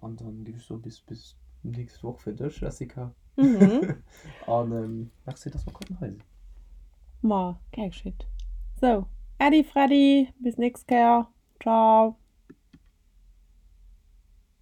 dann géif ech soen, bis bis nächst Woch fir dech, Jessica. Mhm. An merci, dass mer konnten hei sinn. Ma gär geschitt. Sou, Äddi Freddi, bis nächst Kéier. Ciao.